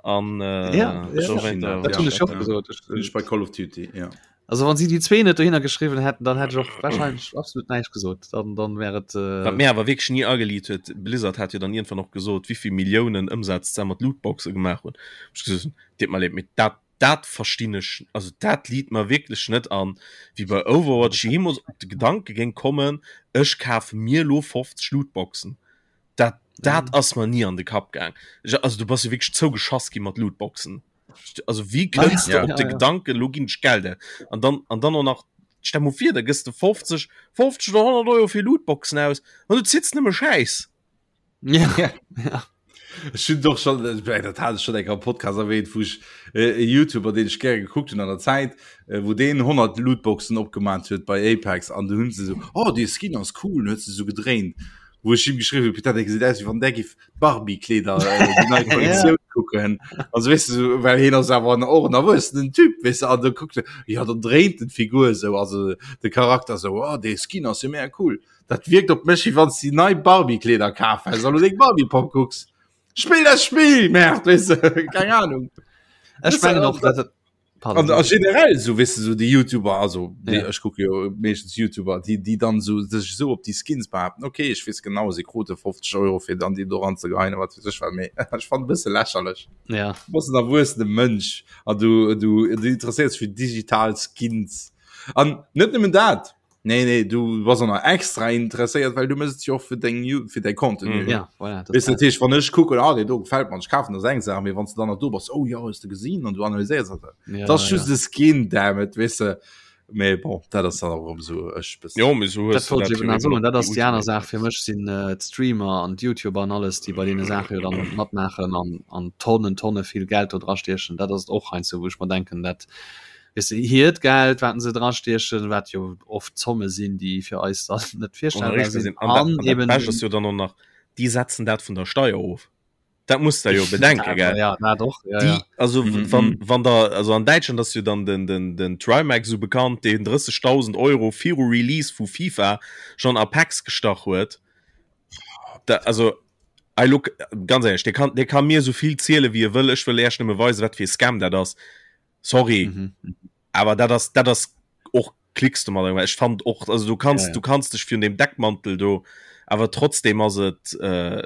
An äh, Ja, ja. so weiter, dat hunn ech och gesot. Ech- Hunn ech bei Call of Duty, ja. Also wann si déi zwee net dohinner geschriwwen hätten, dann hätt ech och wahrscheinlech absolut näischt gesot. Dann, dann wär et äh, Wat mir awer wierklech ni ageliit huet, Blizzard hat jo dann iergendwann och gesot, wéivill Milliounen Ëmsaz se mat Lootboxe gemaach hunn. Ech gesot hunn, deet mer leed, mee dat, dat verstinn ech, also dat liit mer wierklech net an, wéi bei Overwatch jeemools op de Gedanke géing kommen, ech kafe mir elo 50 Lootboxen. Dat, dat ass mer ni an de Kapp gaang. Ech, also du bass jo wierklech zougeschass gi mat Lootboxen. Also wéi kënns de Ja. op de Gedanken, elo ginn ech Geld aus? An dann, an dann och nach, stell mol vir, da gëss de 50, 50 oder 100 Euro fir Lootboxen aus an du zitts nëmme Schäiss. Ja. Ja. Ech hunn doch schon, äh, dat hat ech schon eng am Podcast erwähnt, wou ech äh, e YouTuber, deen ech gäre gekuckt hunn an der Zäit, äh, wou deen 100 Lootboxen opgemaat huet bei Apex an du hunn se so, oh, dee Skin ass cool, huet se so gedréint. Wou ech him geschriwwen hunn, putain, dee gesäit aus, wéi wann där giff Barbie-Kleeder, äh, déi nei Kollektioun kucken. Also weess de, so, well hien ass awer en, och en erwuessenen Typ, weess de, an da kuckt e, ja, dann dréint en d'Figur esou, also de Charakter esou, oh, dee Skin ass jo mega cool. Dat wierkt op mech, wéi wann s de déi nei Barbie-Kleeder kaf häss an lo deng Barbie-Popp kucks. Spill dat Spill, Merde, weess de, keng Ahnung. Ech mengen och, dat. An a generell so wis du so die YouTuber also die, ja. ich gucke jo meeschtens YouTuber die die dann so sech so op die Skins behaupten okay ich wees genau sie krute 50 Euro fir dann die do anzegeien wat fir sech war méi ich fand bësse lächerlech ja was en erwuessene Mënsch an du du du interesséiers fir digital Skins an net nëmmen dat Nee, nee, du bass och nach extra interesséiert, well du mëss et jo och fir deng Ju- fir däi Contenu. Mm. Ja, voilà, das Weess du, dat heescht, wann ech kucken, ah, deen do gefält mer, ech kafen, dat ass eng Saach, mee wann s du dann nach do bass, oh jo, hues de gesinn, an du analyséiers dat. Ja, Dat ass ja. just e Skin, damn it, weess de. Mee bon, dat ass dann och erëm esou, ech bëssen. Jo, mee sou hues Dat du wollt dat ech jo eben nach eben soen. och Dat déi ass déi aner Ultimate Saach fir mech sinn äh, d'Streamer an d'Youtuber an alles, déi bei deene Saache jo dann matmaachen an, an Tonnen, Tonne vill Geld do drastiechen. Dat ass et och heiansdo, wou ech mer denken, dat weess de, hiert Geld, wat se drastiechen, wat jo oft Zomme sinn, déi fir eis dann net virstellbar sinn. An dat, An an dat eben Bescht ass jo dann och nach, déi setzen dat vun der Steier of. Dat muss der jo bedenken, gell? Ja, dat och, ja, Déi, ja. also Mhm. wann, wann der, also an Däitschland ass jo dann den, den, den Trymacs esou bekannt, deen 30.000 Euro viru Release vu FIFA schonn a Packs gestach huet. Da, also, I look, ganz éierlech, dee kann, dee ka mir esou vill ziele wéi e wëll, ech wëll Äech nëmme weisen, wat fir e Scam dat ass. Sorry, Mhm. awer dat ass, dat ass och klicks du mat ech fand och also du kannst Ja, ja. du kannst dech virun dem Deckmantel do awer trotzdem ass et äh,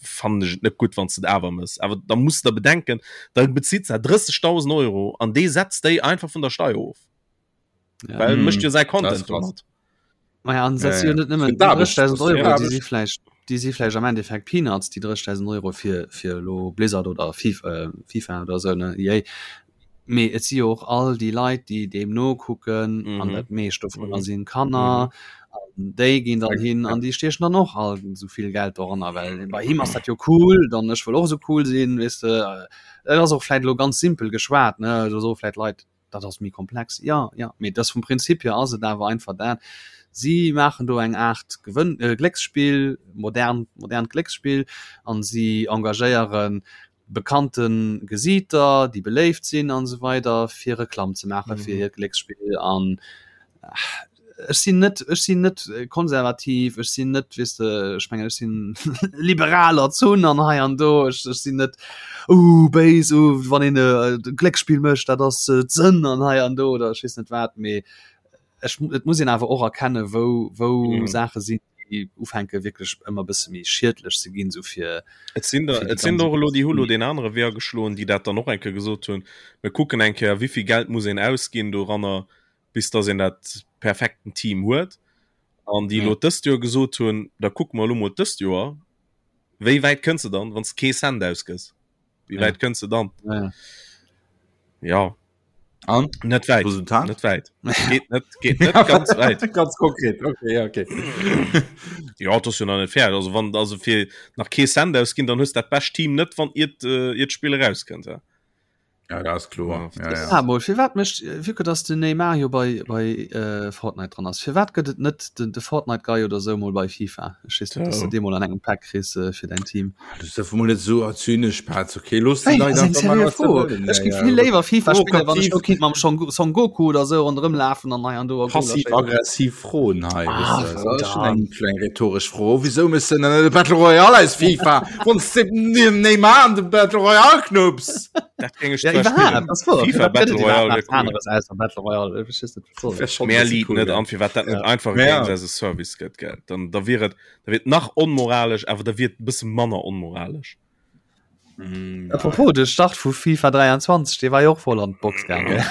fand ech et net gutt wann s de et awer mëss awer da muss der bedenken da bezitt se 30.000 Euro an dee setzt déi einfach vun der Steier of Ja. well Mhm. mécht jo säi Das Content ist krass. domat Maja, an dat Ja, si jo ja. net nëmmen Fir d'Aarbecht, 30.000 das ist Euro, fir déi d'Aarbecht. si vläicht, déi si vläicht am Endeffekt Peanuts, déi 30.000 Euro fir, fir elo Blizzard oder Fif, äh, FIFA oder esou, ne, EA. Mee et si jo och all déi Leit, déi deem nokucken, an Mhm. dat meescht dovunner Mhm. sinn Kanner, Mhm. an déi ginn dann hin an déi stiechen dann och all esou vill Geld doranner, well bei him ass dat jo cool, dann ech wëll och esou cool sinn, weess de. Et ass och vläicht elo ganz simpel geschwat, ne, do soe vläicht Leit, dat ass méi komplex, jo, jo, mee et ass vum Prinzip hier ass et awer einfach dat, si maachen do eng Aart Gewënn, Glécksspill, modern, modernt Glécksspill an si engagéiere bekannte Gesiiter, déi beléift sinn an esou weider, fir Reklamm ze maache fir hiert Glécksspill an ech sinn net, ech sinn net konservativ, ech sinn net, weess de, ech mengen, ech sinn liberal erzunn an hei an do, ech, ech sinn net uh béis, uh wann een e Glécksspill mécht, dat ass d'Sënn an hei an do oder ech weess net wat, mee ech, et muss een awer och erkennen, wou, wou Mhm. Saache sinn, déi ufänke wierklech ëmmer e bësse méi schiedlech ze ginn, sou fir, Et sinn der, fir déi et sinn ganze der och elo, déi hu lo deen anere Wee ageschloen, déi dat dann och eng Kéier gesot hunn, mir kucken eng Kéier, wéi vill Geld muss een ausginn doranner, bis dass een dat perfekten Team huet an déi elo dëst Joer gesot hunn, da kucke mer elo mol dëst Joer, wéi wäit kënns de dann, wann s de kee Cent ausgëss, wéi wäit kënns de dann? Ja. Ja. An? Net wäit. Resultat? Net wäit. Geet net, geet net ganz wäit. Ganz konkret, okay, ja, okay. Ja, dat ass jo nach net fäerdeg. Also wann also fir nach kee Cent ausginn, dann hues dat bescht Team net, wann iert, äh, iert d'Spill erauskënnt. Ja. Ja, dat ass kloer. Ja, ja. Ah, mol, firwat mécht, vu que dass den Neymar jo bei, bei äh, Fortnite dran ass, firwat gëtt et net den, de Fortnite Guy oder sou mol bei FIFA? Ech weess net, dass du Oh. dee mol an engem Pack kriss äh, fir däin Team. Du dierf mol net sou zynesch, Petz, okay? Looss déi Hey, Leit ass eng einfach maachen, seriö wat se Fro. wëllen. Ech Ja, géif ja. vill léiwer FIFA spillen, wann ech Provokativ, do kinnt mam Son, Son Goku oder sou ronderëm lafen an hei an do a Goler schéissen. passiv-aggressiv Froen hei, Ah, weess de. Dat ass schon verdammt. eng kleng rhetoresch Fro. Wisou méchs de dann net e Battle Royale aus FIFA, wann s de dem Neymar an de Battle Royale knupps? Dat géing ech Ja, zwar iwwerhaapt, spillen. ass wouer. FIFA Firwat gëtt Battle et Royale iwwerhaapt wär nach cool. aneres ausser Battle Royale? Ech weess net, wat soll Wär dat? schon Mär bësse liit cool, net gell? an, firwat dat net Ja. einfach Ja. Games as a Service gëtt, gell? Dann, da wier et, da wier et nach onmoralesch, awer da wier et e bësse manner onmoralesch. Mm, Apropos, de Start vu FIFA 23, dee war jo och voll an d'Box gaang, gell?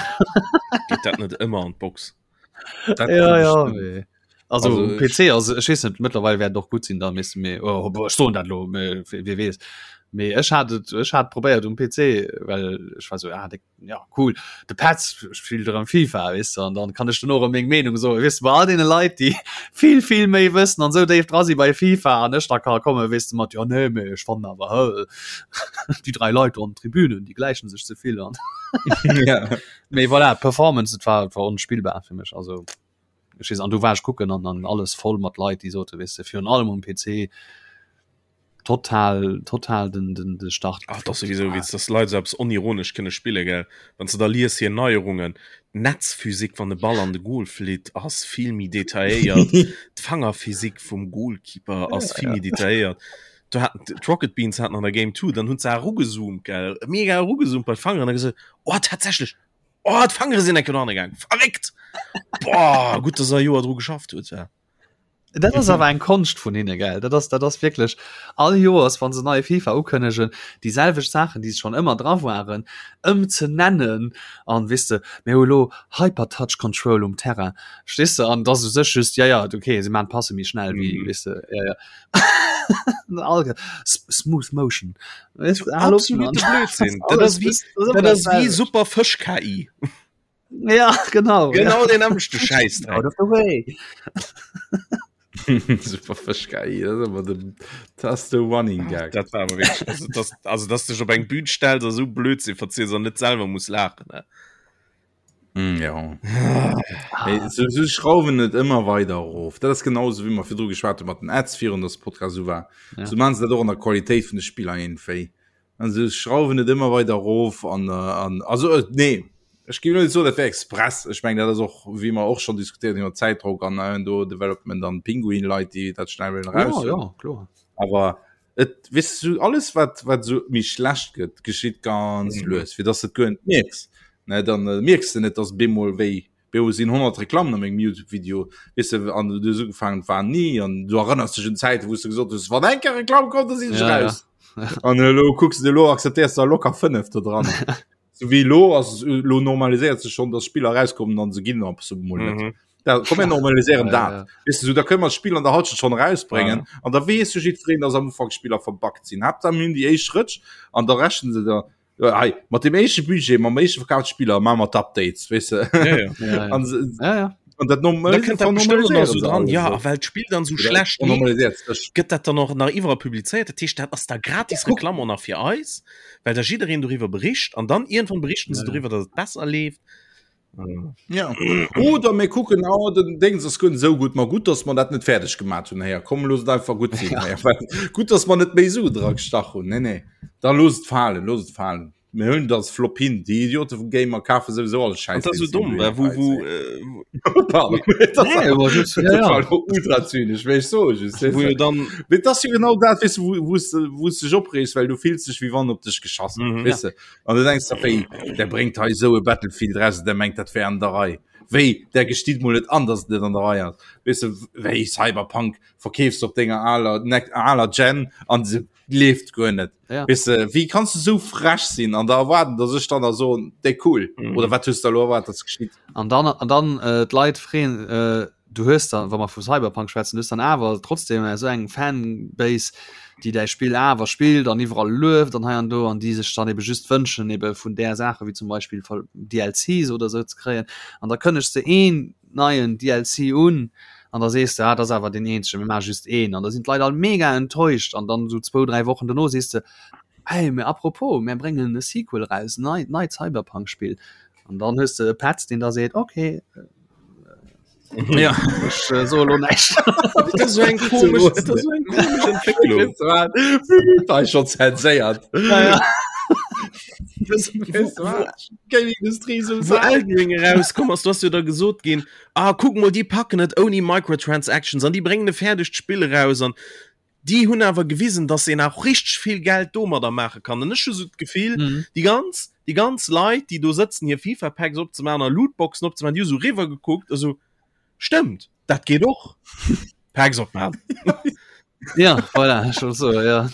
Geet dat net ëmmer an d'Box? Dat Ja, ja, bestimmt. mee. Also, Also, um PC, also ech weess net, mëttlerweil wäert et och gutt sinn, da misste mir, oh, ech soen dat elo, mee wie weess. Mee ech hat et, ech hat probéiert um PC, well ech war sou, ah, de, ja, cool, de Petz spillt erëm FIFA, weess de, an dann kann ech duerno erëm meng Meenung soen, weess de, bei all deene Leit, déi vill, vill méi wëssen an sou déif dra si bei FIFA an ech da ka kommen, weess de, mat, jo, nee, mee ech fannen awer, hë, déi dräi Leit do an den Tribünen, déi gläichen sech ze vill an. Ja. Mee voilà, d'Performance, et war, et war onspillbar fir mech, also ech weess, an du war ech kucken an an alles voll mat Leit, déi sote, weess de, virun allem um PC total, total den, den, de Start Ach, dat ass gefloppt. souwisou Ah. Witz, dass Leit esou eppes onironesch kënne spille, gell? Wann s de da lies hir Neierungen, d'Netzphysik, wann de Ball an de Goal flitt, ass vill méi detailléiert, d'Fangerphysik vum Goalkeeper ass vill méi detailléiert. Do haten d'Rocket Beans haten an der Game 2, dann hunn se erugezoomt, gell, mega erugezoomt bei d'Fangeren a gesot, oh tatsächlech! Oh, d'Fangere sinn enke no gaang. Verréckt! Boah, gutt, dass er e Joer dru geschafft huet. Ja. Dat ass awer eng Konscht vun hinne gell. Dat ass dat ass wierklech all Joers wann se neie FIFA ukënnegen, déi selwecht Saachen, déi schonn ëmmer dra waren, ëm ze nennen an weess de, mir hu lo Hyper Touch Control um Terrain, verstees de? An et ass u sech just, ja ja, okay, se maachen d'Passe méi schnell wéi, weess de, ja ja. All Smooth Motion. Weess de, hal op, Mann. Absolute Blödsinn. Dat ass wéi, dat ass wéi Super Fësch KI. Ja, genau. Genau den nämmlechte Schäiss. Out of the way. Super Fësch KI, dat ass awer den, dat ass de Running Gag. Dat war awer wierklech, also dass, also dass dech op eng Bühn stells a sou Blödsinn verziels an net selwer muss laachen, ne? Mm, ja. Hey, so, so schrauwen net ëmmer weider erof. Dat ass genauso wéi mer virdru geschwat hu mat den Ads virun, dass de Podcast esou war. Ja. So maachen se dat och an der Qualitéit vun de Spiller iergendwéi. Also schrauwen et ëmmer weider erof an, an also nee ech géif net soen dat wär express. Ech mengen dat ass och wéi mer och schonn diskutéiert hunn iwwer Zäitdrock an äh, do Development an Pinguin-Leit déi dat schnell wëllen eraus. Ja, ja, kloer. Awer et weess du alles wat wat esou méi schlecht gëtt geschitt ganz mhm. lues fir dass et guer net mierks. Ne dann äh, mierks de net dass bemol wéi Beo sinn 100 Reklammen a mengem YouTube-Video, weess de, an du hues ugefaangen, et war ni, an du erënners dech un Zäiten, wou s du gesot hues, wann eng Kéier Reklamm kommt, da sinn ech Ja, ja. raus. An elo kucks de, elo akzeptéiers de locker 5 do dran. Sou wéi elo ass, elo normaliséiert sech schonn, dass Spiller erauskommen an se ginn ab so mol net. Mhm. Da komm mir normaliséieren Ja, dat. ja. Weess de, sou da kënne mer d'Spill an der Halschent schonn erausbréngen an da weess jo jiddwereen, dass am Ufank Spiller verbuggt sinn. Haaptsaach mir hunn déi éischt Rëtsch an da rechnen se da Ja, hey, mat dem éischte Budget, mam éischte verkaufte Spiller maache mer d'Updates, weess de. Ja, ja. Ja, ja. An, se- Ja, ja. an dat Da kënnt dat bestimmt och nach so dran. Ja, a well well d'Spill dann so schlecht leeft, normaliséiert sech. gëtt dat dann och nach iwwerall publizéiert. Dat heescht, dat ass da gratis Guck. Reklamm och nach fir eis, well da jiddereen doriwwer bericht an dann iergendwann berichten se Ja, ja. doriwwer, datt et besser leeft. Ja. Oder mir kucken oh, den Dings ass guer net esou gutt, ma gutt, dass mer dat net fäerdeg gemaat hunn. Héier, komm looss et einfach gutt sinn. Ja. Well, gutt, dass mer net méi Su dra gestach hunn. Nee, nee. Da looss et falen, looss et falen. Mir hunn dat Flop hin. Déi Idiote vum Gamer kafe souwisou all An Schäiss. dat ass deen so dumm, se well wou, wou, äh, äh, Pardon. Dat ass Nee, aber just, ja, dat ja. war lo ultra zynesch, wéi ech soe just. wou jo dann Mee dat ass jo genau dat, weess du, wou, wou s de, wou s dech opreegs, well du fills dech, wéi wann op dech geschass gëtt, Mhm. weess de. An du denkst der, wéi, der bréngt hei esou e Battlefield raus, der mengt, dat wär an der Rei. Wéi, der gesteet mol net an, dass et net an der Rei ass. Weess de, wéi Cyberpunk verkeefs du op denger aler, ne, aler Gen an se leeft guer net. Ja. Weess de, wéi kanns du esou frech sinn an da erwaarden, dass ech dann da soen, déi cool. Mhm. Oder wat hues du da elo erwaart, dass geschitt? An dann, an dann äh, d'Leit freeën, äh, du hues dann, wa mer vu Cyberpunk schwätzen, du hues dann awer trotzdem esou eng Fanbase, déi däi Spill awer spillt an iwwerall lueft an hei an do an déi sech dann ebe just wënschen ebe vun där Saache wéi zum Beispill DLCs oder esou ze kréien. An da kënnegs de een neien DLC un an da sees de, ah, dat ass awer deen eenzegen, mir maache just een. An da sinn d'Leit all mega enttäuscht an dann esou zwou, dräi Wochen dono sees de, hey, mä apropos, mir bréngen e Sequel eraus, en neit, neit Cyberpunk-Spill. An dann hues de e Petz, deen da seet, okay, Ja. Ech äh, so lo näischt. Dat ass so eng komesch, dat ass so eng komesch Entwécklung. Da ist schon zenséiert. Ja, ja. Das, wo, wo, Gaming-Industrie so wo Elden Ring erauskomm ass, du hast jo da gesot ginn, ah, kuck mol, déi packen et ouni Microtransactions an déi bréngen e fäerdegt Spill eraus an déi hunn awer gewisen, dass een auch richteg vill Geld domadder maache kann. An ech hu sou d'Gefill, Mhm. déi ganz, déi ganz Leit, déi do sëtzen, hir FIFA-Packs opzemaachen a Lootboxen opzemaachen, déi hu sou riwwer gekuckt a sou, stëmmt, dat geet och. Packs opmaachen. Ja, voilà, schon so, ja.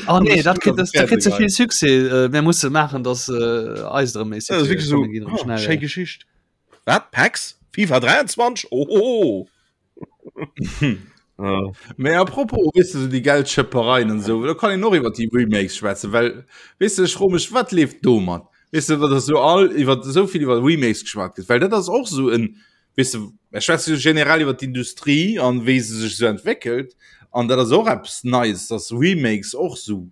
Oh nee, dat kritt das, dat kritt ze vill Succès. Äh, mir musse maachen, dass äh, eis erëm méi Dat ass Succès wierklech sou, kommen ginn erëm oh, schnell. schéi Geschicht. Wat? Packs? FIFA 23? Ohoho! Ja. Mee apropos, weess de, déi Geldschëppereien an esou, do kann een och iwwer déi Remakes schwätzen, well, weess de, ech froe mech, wat leeft domat? Weess de, wat ass esou all iwwer esou vill iwwer Remakes geschwat gëtt, well dat ass och esou en, weess de, ech schwätze jo generell iwwer d'Industrie an wéi se sech esou entwéckelt an dat ass och eppes Neies, dass Remakes och esou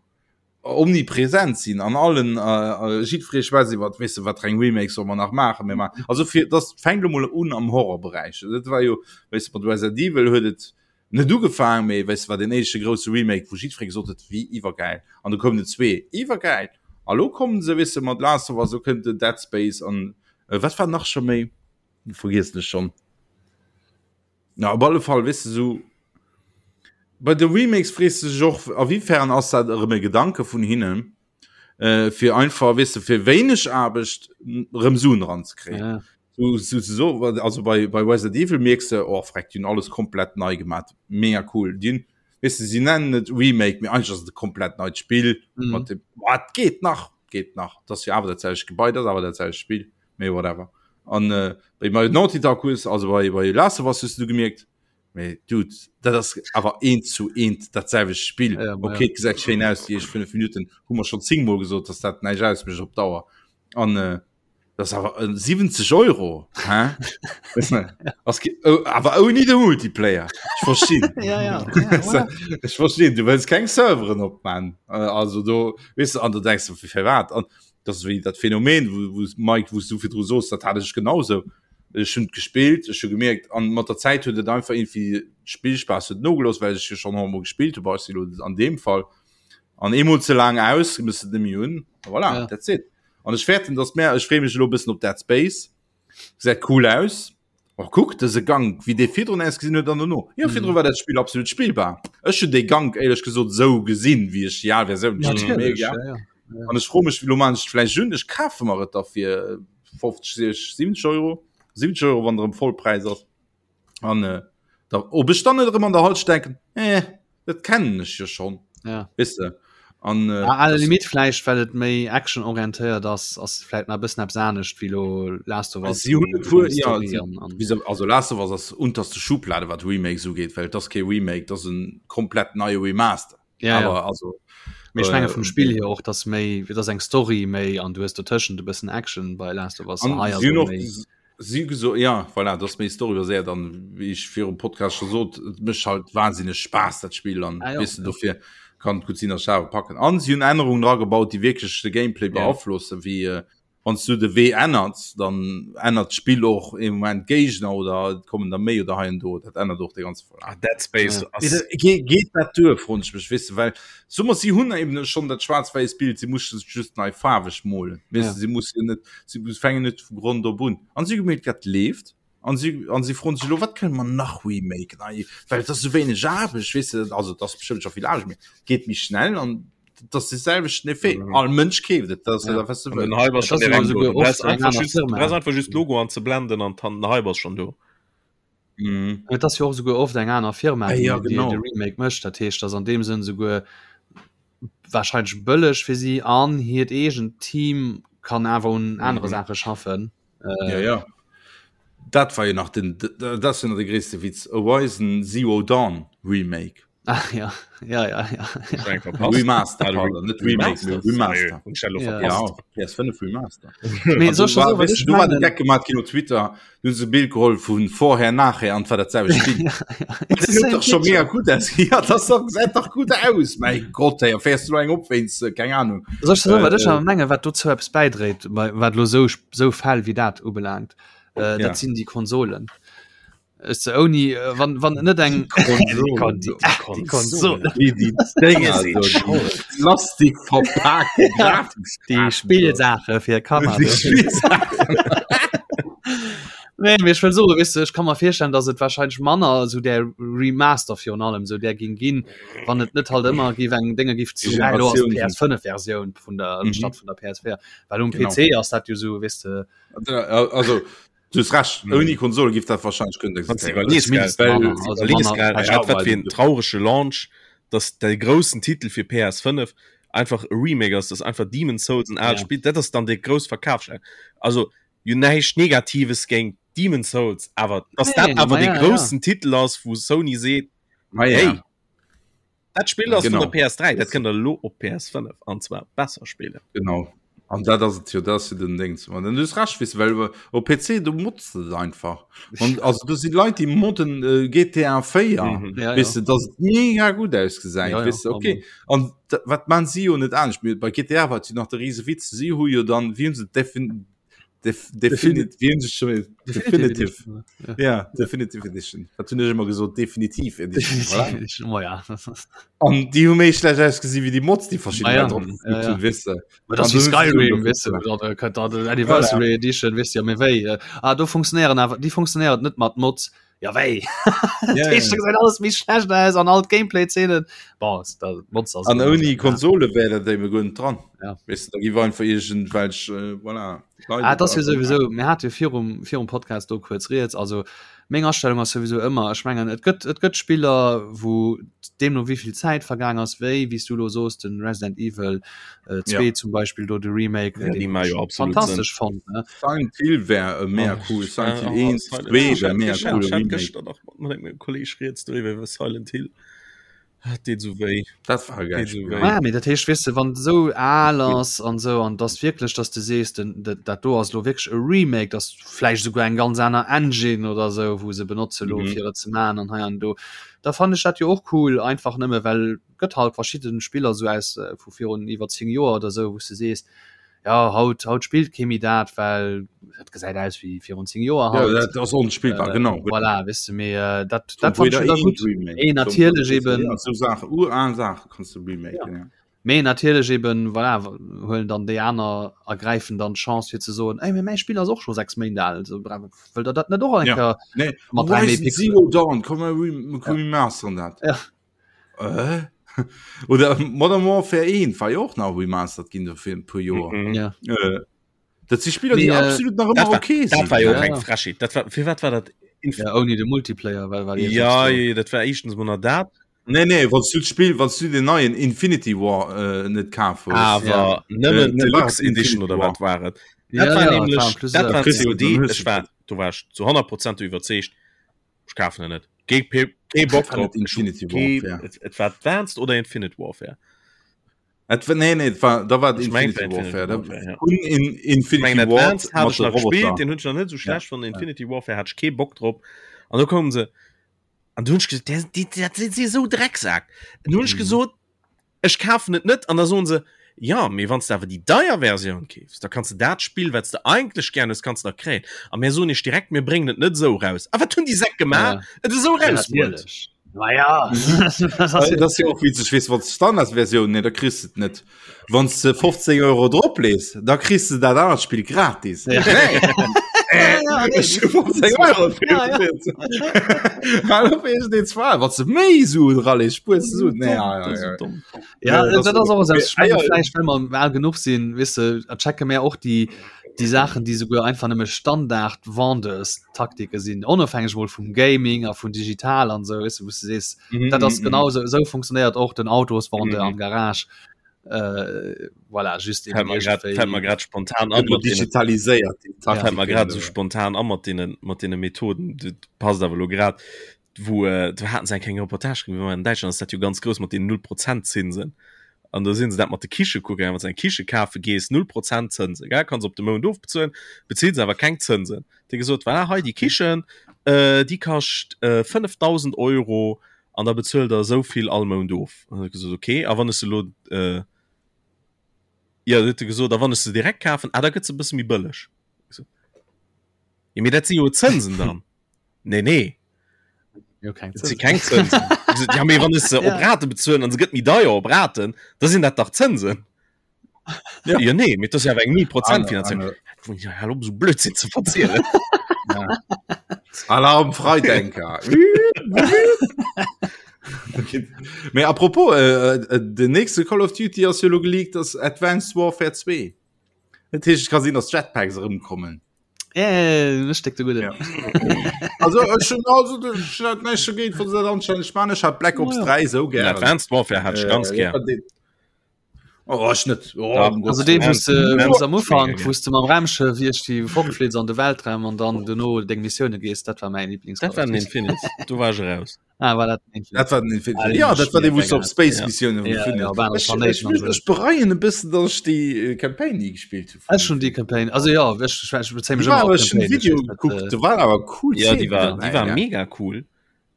omnipresent sinn an allen äh, äh, jiddweree schwätzt iwwer weess de wat fir eng Remakes soll mer nach maachen mir maachen also fir das fänkt lo mol un am Horrorberäich dat war jo weess de mat Resident Evil huet et net ugefaangen mee weess de war den éischte grousse Remake wou jiddweree gesot huet wéi iwwergäil an du koum den zwee iwwergäil a lo kommen se weess de mat Last of Us lo kënnt den Dead Space an äh, wat war nach scho méi vergiessen ech schonn Na op alle Fall weess de sou bei de Remakes frees de sech och a wéifern ass dat erëm e Gedanke vun hinnen. äh, fir einfach weess de fir wéineg Aarbecht rëm Suen eranzekréien. Ja. So, so, so, also bei, bei Resident Evil mierks de, oh freck, déi hunn alles komplett nei gemaat, mega cool. Déi hunn, weess de, si nennen et Remake, mee eigentlech ass et e komplett neit Spill mhm. mat dem, boah, et geet nach, geet nach. Dat ass jo awer dat selwecht Gebai, dat ass awer dat selwecht Spill, mee whatever. An äh, bei bei Naughty Dog hues, also bei, bei Last of Us hues du gemierkt, mee Dude, dat ass awer eent zu eent dat selwecht Spill. Ja, okay, ja. gesäit schéin aus, déi éischt 5 Minuten hu mer schon 10 mol gesot, dass dat näischt ausmécht op Dauer. An äh, Das awer 70 Euro hä? awer ouni de Multiplayer. Ech verstinn. ja, ja. Ja, Ech verstinn, du wëlls keng Serveren opman. Äh, also do weess du an du denkst du fir wat an das wéi dat Phänomen wo, wo Mike wous du virdru soos, dat hat ech genauso. Ech hunn gespillt, ech hu gemierkt an mat der Zäit huet et einfach irgendwie Spillspaass huet nogelooss, well ech jo schon emol gespillt hu bei an deem Fall. An eemol ze laang aus, muss et nemmi hunn. Voilà, ja. that's it. An ech fäerten, dass mär, ech freeë mech elo e bëssen op Dead Space. Gesäit cool aus. Och kuck, dëse Gank, wéi dee virdrun ausgesinn huet an dono. Jo, virdru mhm. war dat Spill absolut spillbar. Ech hunn dee Gank éierlech gesot sou gesinn, wéi ech déi al Versioun ja, mega. Ja, ja. Ja. An ech froe mech, lo man ech vläicht un, ech kafe mer et da fir 50, 60, 70 Euro. 70 Euro, wann erëm Vollpräis ass. An äh, da, ob ech dann net erëm an der Halsch denken, eh, dat kennen ech jo schon. Ja. Weißt du? An, äh, ah, alle Limit vläicht, well et méi actionorientéiert ass, ass vläicht nach e bëssen eppes anescht wéi lo Last of Us. Si hunn et wuel, ja, si, wieso, also Last of Us ass unterste Schublade, wat Remakes ugeet, well et ass kee Remake, et ass en komplett neie Remaster. Ja, Aber, ja. also, Mee ech menge äh, vum Spill hier och, dass méi, dass eng Story méi an du hues dotëschent e bëssen Action bei Last of Us. An Hei ass si hunn et och méi. si geso ja voilà, dat ass méi storybaséiert an wéi ech virum Podcast scho sot, et mécht halt wahnsinneg Spaass dat Spill an Ah, ja, weess de ja. dofir kann et gutt sinn, dass ech awer packen. An si hunn Ännerungen dragebaut, déi wierklech de Gameplay Ja. beaflossen, wéi äh, wann s du de Wee ännerts, dann ännert d'Spill och ee Moment d'Géigner oder et kommen der méi oder hei an do, dat ännert och de ganze Verlaf. Ah, Dead Space Ja. ass Geet geet dat duer, froen ech mech, weess de, well soe mer, si hunn eben schonn dat schwaarz-wäiss Bild, si musse sech just nei faarweg molen, weess Ja. de, si musse net, si fänken net vu Grond op un. An si hu gemierkt, dat leeft, an si an si froen sech elo, wat kënne mer nach remaken, ei, well et ass esou wéineg Aarbecht, weess de, also et ass bestëmmt scho vill Aarbecht, mee et geet méi schnell an dat ass de selwechten Effet. Mhm. All Mënsch keeft et, dat ass Ja. dat, wat du An den wëlls. Hype ass Dat schon ass jo direkt do. souguer Du brauchst oft eng einfach aner just, du Firma. brauchst einfach just d'Logo anzeblenden an den Hype ass schon do. Mhm. Et ass jo och souguer oft eng aner Firma, Ah, déi, ja, déi genau. de Remake mécht. Dat heescht, ass an deem Sënn souguer wahrscheinlech bëlleg fir si an hiert eegent Team kann awer un anere Mhm. Saache schaffen. Äh, Ja, ja. Dat war jo nach den, dat ass jo nach de gréisste Witz, Horizon Zero Dawn Remake. Ach ja, ja, ja, ja. Eng verpasst. Remaster, Ah, pardon, net Remake, mee Remaster. Hunn ech dat elo Ja. verpasst? Ja, PS5 Remaster. Mee An soll du ich war, soen, wat weißt ech du, du war de mengen? Geck gemacht ginn op Twitter, du hunn se e Bild geholl vun vorher, nachher an et war dat selwecht Spill. Ja, Dat it's the huet same doch schon picture. mega gut aus. Ja, das doch, gesäit dach gut aus. Mein Gott, ey, fährst du eng op wéinst, äh, keng Ahnung. Soll ich soen, wat Äh, ech awer mengen, wat dozou eppes bäidréit, bei- wat elo sou sou Fäll wéi dat ubelaangt, äh, Ja. dat sinn déi Konsolen. Ech se ouni äh, wann wann net eng Konsolen. die, die Konsole Wie die Dinger, so, die Plastik verpackte die Spielsache fir Kanner Die Spielsachen. Nee, mee ech wëll soen, weess de, ech kann mer virstellen, dass et wahrscheinlech manner esou där Remaster virun allem esou där ging ginn, wann et net halt ëmmer géif eng Dénge giff zu Déi ah, lo ass Generatioun d'PS5 Versioun vun der Mhm. statt vun der PS4, well um Genau. PC ass dat jo esou, weess de, Also, du hues recht, ouni Konsole giff dat wahrscheinlech kënnen Wann du existéieren. iwwerlees, gell, Zumindest Well, manner, also iwwerlees, manner gell, vläicht wat wat fir en do. traurege Launch, dass de groussen Titel fir PS5 einfach e Remake ass, dass einfach Demon's Souls en aalt Ja. Spill, dat ass dann de grouss Verkafsschlager. Also jo näischt Negatives géint Demon's Souls, awer dass Nee, dat awer ma de ja, ja. groussen Titel ass, wou Sony seet, Ma ja. hey, dat Spill ass vun Genau. der PS3, dat kënnt der elo op PS5 an zwar besser spillen. Genau. An dat ass et jo, dat ass jo den Ding. An du hues recht, weess de, well op PC, do motz de et einfach. An also do si Leit, déi modden äh, GTA 4, Mhm. Ja, weess ja. de, dass et mega gutt ausgesäit, Ja, ja, weess de, okay. An da, wat man si jo net anescht. Mee Bei GTA war et jo nach de riese Witz, si hu jo dann, wéi hunn se defin, def, defini, wéi hunn se schon, definitive, Ja. ja, Definitive Edition. Dat hunn ech ëmmer gesot, definitiv Edition, voilà. Definitive Edition, oh ja. An déi hu méi schlecht ausgesi wéi déi Mods, déi verschidden Ah ja, Leit drop ja, geflippt ja. hunn, weess de. Ma das An wie du hues Skyrim, du weißt du, da könnt da Anniversary Edition, weißt du, ja, méi wéi. Ah, do funktionéieren awer, déi funktionéiert net mat Mods. Ja wéi ja, ja. gesäit alles méi schlecht aus an all Gameplay-Zeenen An ouni Konsole wär dat déi guer net dran. Ja. Weißt du, da gi einfach irgendwelch äh, voilà, ah, das jo sowieso mir hat jo virum virum Podcast do kuerz riets also meng Astellung ass sowieso ëmmer ech mengen et gëtt et gëtt Spiller wou deemno wéivill Zäit vergaang ass wéi wéi s du lo soos den Resident Evil äh, 2 ja. zum Beispill do de Remake ja, den jo absolut fantastesch fand ne? Silent Hill wär e mega oh, cool Silent Hill 1 2 wär mega cool Remake. Kolleg riets driwwer iwwer Silent Hill. Dat deet sou wéi. Dat war e gäilt Spill. Ah, mee dat heescht, weess de, wann et esou al ass an esou, an dass wierklech, dass de sees, den, dat do ass elo wierklech e Remake, dass vläicht esouguer eng ganz aner Engine oder esou, wou se benotze lo, mhm. fir et ze maachen an hei an do, da fannen ech dat jo och cool, einfach nëmme well gëtt halt verschidden Spiller esou aus äh, vu virun iwwer 10 Joer oder esou, wou s de sees, ja haut haut spillt kee méi dat well dat gesäit aus wéi virun 10 Joer ja, dat ass onspillbar äh, genau voilà, wis du mir äh, dat dat fand ich gut eh, natierlech eben ja, so Sache ural Sache kannst du remake ja. ja. Mee natierlech eben voilà, huelen dann déi aner ergräifen dann d'Chance fir ze soen ey, mäi Spill ass och scho 6 Méint al so wëll der dat net och eng ja. nee. mat Zero Dawn komm remasteren dat ja. Äh? Oder Modern Warfare 1 war jo och nach remastered ginn do fir e puer Joer. Mhm. Ja. Äh, dat si Spiller, déi Mee, äh, absolut nach ëmmer Dat war, okay dat sinn. war jo och Ja. eng Frechheet. Dat war, fir wat war dat? Inf Ja, ouni de Multiplayer, well well ja, ja, dat war éischtens mol nach dat. Nee, nee, wann du d'Spill, wann du den neien Infinity War äh, net kaf hues. Awer Ja. nëmmen Äh, ne, war Deluxe et Edition Infinity oder War. wat war et? Ja, Dat war ja, nämlech, war plus, dat äh, war kriss du, COD. dann hues Ech du war, do war ech zu 100 Prozent iwwerzeegt, ech kafen en net. Kee, kee Bock War net drop. Ech hu Infinity kee, Warfare. et, et war Advanced oder Infinite Warfare. Et war, nee, nee, et war, da war et Ech meng, Infinity et war Warfare. Da, Infinity Warfare, ja. un in, Ich Infinity mengen Ward Advanced hat mat ech de nach gespielt, Roboter. den hunn ech nach net sou Ja. schlecht fonnt. Infinity Warfare hat ech kee Bock drop. An do koumen se an du hunn ech gesot, der, die, dat sinn si sou Drecksak. An du hunn ech Mhm. gesot, Ech kafen et net an da soen se, jo, mee wann s de awer déi deier Versioun keefs, da kanns de dat Spill, wat s de eigentlech gär hues, kanns de nach kréien. A mär soen iech direkt, mir bréngen et net esou eraus. A wat hunn déi Säck gemaach? Et esou erausbruet. Natierlech. Ma ja. Dat ass jo och witzeg, weess, wann s de d'Standardsversioun, nee, da kriss de et net. Wann s de 15 Euro drop lees, da kriss de dat anert Spill gratis. Ja. Nee. Ja, nee. Ech hu 15 Euro fir Ja, ja. Hallo, fir den zwar, wat ze méi Suen ralees, spuers du Suen. Nee, ja, ja, ja. Ja, Ja, das dat ass och Mee, ich meine, ah, ja. vielleicht wenn mer al genuch sinn, wis de, a checke mär och déi déi Saachen, déi souguer einfach nëmme Standard Vendeurstaktike sinn, onofhängeg mol vum Gaming a vun digital an esou, wis de, wou s de sees, Mhm, dat ass mhm, genau esou, esou funktionéiert och den Autosvendeur Mhm. am Garage. Äh, voilà, just Fällt mer grad, fällt mer grad spontan an Gëtt lo mat deenen, digitaliséiert, déi fällt mer Taktiken, grad sou äh. spontan an mat deenen, mat deene Methoden, dat passt awer lo grad, wou äh, do haten se eng kleng Reportage gemaach, an Däitschland ass dat jo ganz grouss mat den 0 Prozent Zinsen. An do sinn se dat mat de Kiche kucke gaangen, wann s de eng Kiche kafe gees, 0 Prozent Zënsen, gell, kanns op de Mount ofbezuelen, bezills awer keng Zënsen. Déi gesot, voilà, hei déi Kichen, äh, déi kascht äh, 5.000 Euro an da bezuelt der esou vill all Mount of. An huet gesot, okay, a wann ech se elo äh, ja, huet e gesot, a wann ech se direkt kafen, ah, da gëtt se e bësse méi bëlleg. Ich so, ja, mee dat si jo Zënsen dann. Nee, nee. Jo, keng Dat si keng Zënsen. Ich so, ja, mee wann ech se op Ja. Rate bezuelen an se gëtt méi deier op Raten, da sinn dat dach Zënsen. Ja. Ja, nee, mee dat ass jo awer eng 0 Prozent Aner- Finanzierung. aner- Ja, hal op, esou Blödsinn ze verzielen. Ja. Alarm Freidenker. Mee apropos, äh, äh, den nächste Call of Duty ass jo lo geleakt, ass Advanced Warfare 2. Dat heescht, et ka sinn, dass Jetpacks erëmkommen. Äh, ech steck de gudde. Ja. Also ech hun also ech hat näischt dogéint, wann se dat anstänneg man. Ech hat Black Ops Oh ja. 3 sou Den gären. Advanced Warfare hat ich ganz Äh, gern. Oh, ech net. Oh, Ja. um Also Gottes dee Willen. wou s de Ja. wou s am Ufank Mega wou s de mam Raumschëff iech déi fortfliits an de Weltraum an dann dono deng Missioune gees, dat war mäin Lieblings Dat war den Infinite. Do war ich raus. Ah, war dat den Infinite? Dat war den Infinite. Ah, Ja, dat war dee, wou s du op Space Ja. Missioune Ja, ja, op anere Ech, Planéiten ech, an sou. ech bereien e bëssen, datt ech déi äh, Campaign ni gespillt hu. Ech hun déi Campaign, also ja, ech, ech, ech bezéi mech Déi war ëmmer awer op ech hun Campaign, ech Video weess net, gekuckt, äh, do war awer cool Ja, déi Szenen war, dobäi, déi war ja. mega cool.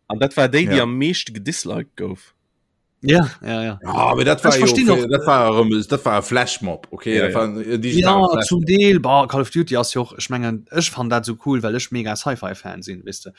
An dat war déi, déi Ja. am meeschte gedisliked gouf. Ja, ja, ja. Ja, aber dat war Ech jo verstinn och- dat war erëm dat war e Flashmob, okay, Ja, dat war en digitale Ja, Flashmob. zum Deel bah, Call of Duty ass jo och ech mengen ech fan dat so cool, well ech mega Sci-Fi-Fan sinn wis de.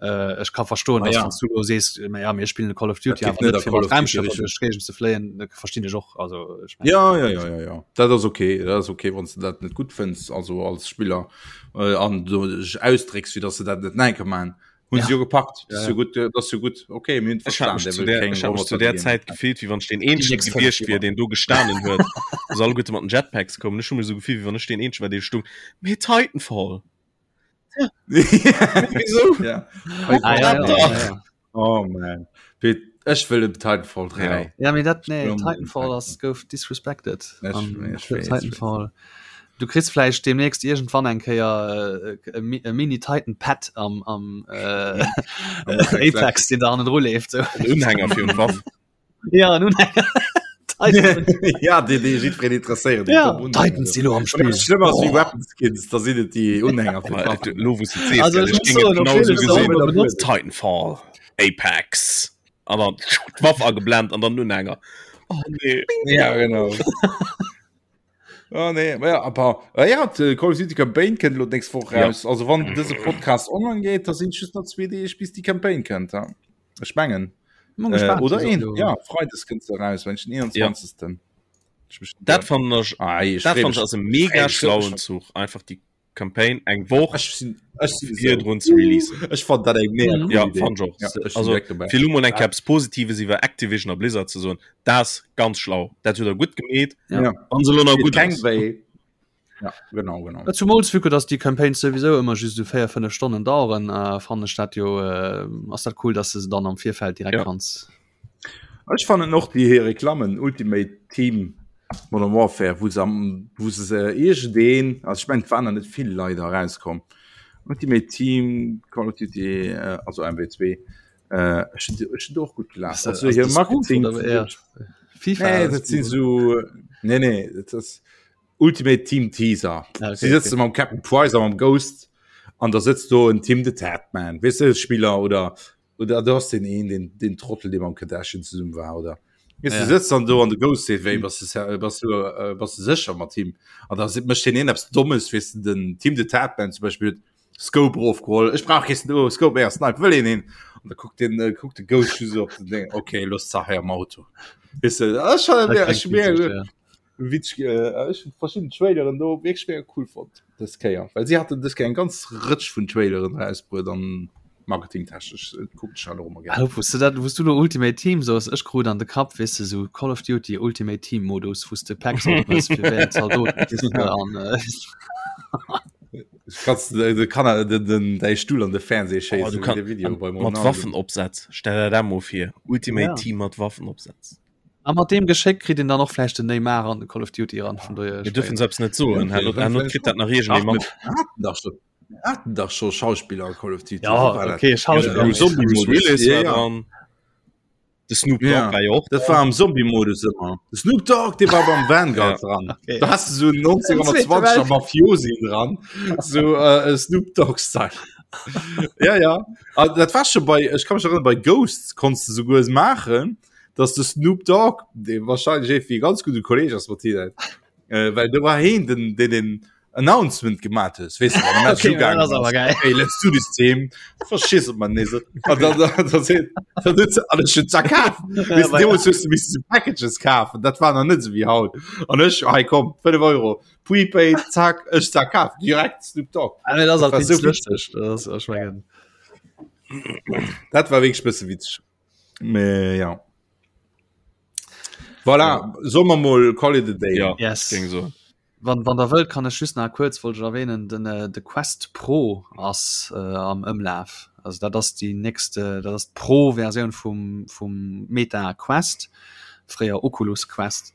Äh, ech ka verstoen, Ah, dass ja. wann du lo sees ma ja mir spillen Call of Duty Dat awer geet net net a fir Call mat of Duty Raumschëffer Richtung. duerch d'Géigend ze fléien, dat verstinn ech och also ech mengen, Ja, ja, ja, ja, ja. Dat ass okay, dat ass okay, wann s du dat net gutt fënns, also als Spiller äh, an du dech ausdrécks, fir dass du dat net enke man. Hun ja. jo gepackt ja, ja. gut das so gut okay mir ich hab mich zu der, ich hab mich zu der Zeit gefehlt wie wann den een gewiescht wier den du gestanen huet soll gut mat den Jetpacks kommen schon mir so gefühl wie wann ich den een war den stung mir Titanfall ja. Wieso? ja. Ah, ja, ja, ja, ja. Oh man Ech wëll Titanfall 3 ja. ja mir dat nee, Titanfall ass gouf disrespected Titanfall Du kriss vläicht demnächst iergendwann eng Kéier äh, e Mini Titan Pad am, am äh, Apex, den da hannendru leeft. So. En Unhänger fir un Waff. Ja, en Unhänger. Titan. ja, déi, déi jiddwereen interesséieren. Ja, Titans si lo am Spill. Schlëmm ass wéi oh. Weapon Skins, da sinn et déi Unhänger fir d'Waffen. Lo wou s de sees, also, ech géing et genau sou gesinn. Titanfall, Apex. An dann d'Waff ageblennt an dann Unhänger. Oh nee. Ja, genau. Oh, nee. Ja, aber, äh, ja, Call of Duty Campaign kënnt lo nächst Woch raus. Ja. Also wann dëse Podcast online geht, da sinn just nach zwee Deeg bis die Campaign kënnt. Ja. Ech mengen. Äh, oder een ja, Freides kënnt se raus, wenn ich den 21. Ja. Dat fand ech, ah, dat fand ech ass e mega schlauen Zuch einfach die Campaign eng Woch ech sinn ech sinn virdrun ze releasen. Ech fand dat eng mega cool ja, fand ich och. Ja, ech also, fir lo mol eng Kéier eppes Positives iwwer Activision a Blizzard ze soen, dat ass ganz schlau. Dat huet der gutt gemeet. Ja. Wann se lo nach gutt ass. Ja, genau, genau. Ja, zumools vu que dass déi Campaigns souwisou ëmmer just esou 4, 5 Stonnen daueren, äh, fannen ech dat jo äh, ass dat cool, dass de se dann am Virfeld direkt ja. kanns. Ech fannen och déi hir Reklammen Ultimate Team Modern Warfare, wou se am wou se se iergendeen, also ech mengen et waren der net vill leider erauskomm. Ultimate Team Call of Duty, äh, also MW2, äh, ech hunn ech hunn do och gutt gelaacht. Ass Also ass hir de Spoof Marketing oder eher FIFA? Nee, dat sinn sou nee nee, dat ass Ultimate Team Teaser. Ah, okay, Si sëtze okay. mam Captain Price a mam Ghost an da sëtzt do en Tim the Tatman, weess de, Spiller oder Oder du hast den een den, den Trottel dee mam Kardashian zesummen war oder Weißt, Ja. du sitzt dann do an de Ghost seet wéi bass du bass du äh, bass du sécher mat him an da mécht den een eppes Dommes weess du den Tim the Tatman zum Beispiel huet Scope erofgeholl ech brauch kee Sno Scope méi a Snipe wëll een een an da kuckt den äh, kuckt de Ghost just op den Ding okay looss d'Saach hei am Auto weess du dat ass schon Dat ech klingt hu mega witzeg, ja. Witzeg, äh, ech hun verschidden Traileren do wierklech mega cool fonnt dës Kéier, well si haten dës Kéier eng ganz Rëtsch vun Traileren erausbruet an marketingtechnesch äh, kucken ech dat och ëmmer gär. Hallo, wous du dat, wous du lo Ultimate Team soos, ech krut an de Kapp, weess de, sou Call of Duty Ultimate Team Modus, wous de Packs opmëss fir wéi eng Zaldoten kriss de an äh, Kannst du de Kanner den, den, däi Stuhl an de Fernseh Oh, du schéissen, wéi kann, de Video an, beim mat Ronaldo. Waffenopsätz. Stell der dat mol vir. Ultimate Ja. Team mat Waffenopsätz. A mat deem Geschéck kritt een dann och vläicht den Neymar an de Call of Duty eran, vun dohier Mir dürfen selbst net soen, Ja, okay, herno kritt dat nach iergendee Ach, mat. mir haten dach schon, mir haten dach scho Schauspiller a Call of Duty. Ja, Wou war dat? okay, Schauspiller. Ja, am Bruce, Bruce Zombie-Modus. Willis Ja, war ja. dran. De Snoop Dogg Ja. war jo och Dat dran. war am Zombie-Modus ëmmer. De Snoop Dogg, dee war beim Vanguard Ja. dran. Okay. Da hast du so einen 1920er Mafiosi dran. So äh, Snoop Dogg-Style. ja, ja. Ah, dat war schon bei, ech kann mech erinnern, bei Ghosts konntest du souguer maachen, dass de Snoop Dogg, dee wahrscheinlech irgendwie ganz gute Kolleg ass mat hinnen, äh, well do war heen den, den den Announcement gemacht hues, weess du, wann de Match Okay, ugaangen dat ass awer ass. geil. Hey, let's do this team. Verschiss op man nees. An dann, dann, dann, seet- dann huet se alles schon zerkaf. Weess du, deemools hues du missen so Packages kafen, dat war nach net sou wéi haut. An ech, hei komm, 5 Euro, Prepaid, zack, ech zerkaf, direkt Snoop Dogg. Ah, nee, dat ass Dat halt war wéinst so witzeg. lëschteg. Dat ass, ech mengen. Dat war wierklech bësse witzeg. Mee ja. Voilà, solle mer mol call it a day. Ja, Yes. géing soen. Wann, wann der wëllt, kann ech just nach kuerz wollt ech erwähnen, den, äh, de Quest Pro ass äh, am Ëmlaf. Also dat ass déi nächst, äh, dat ass d'Pro-Versioun vum, vum Meta Quest, fréier Oculus Quest,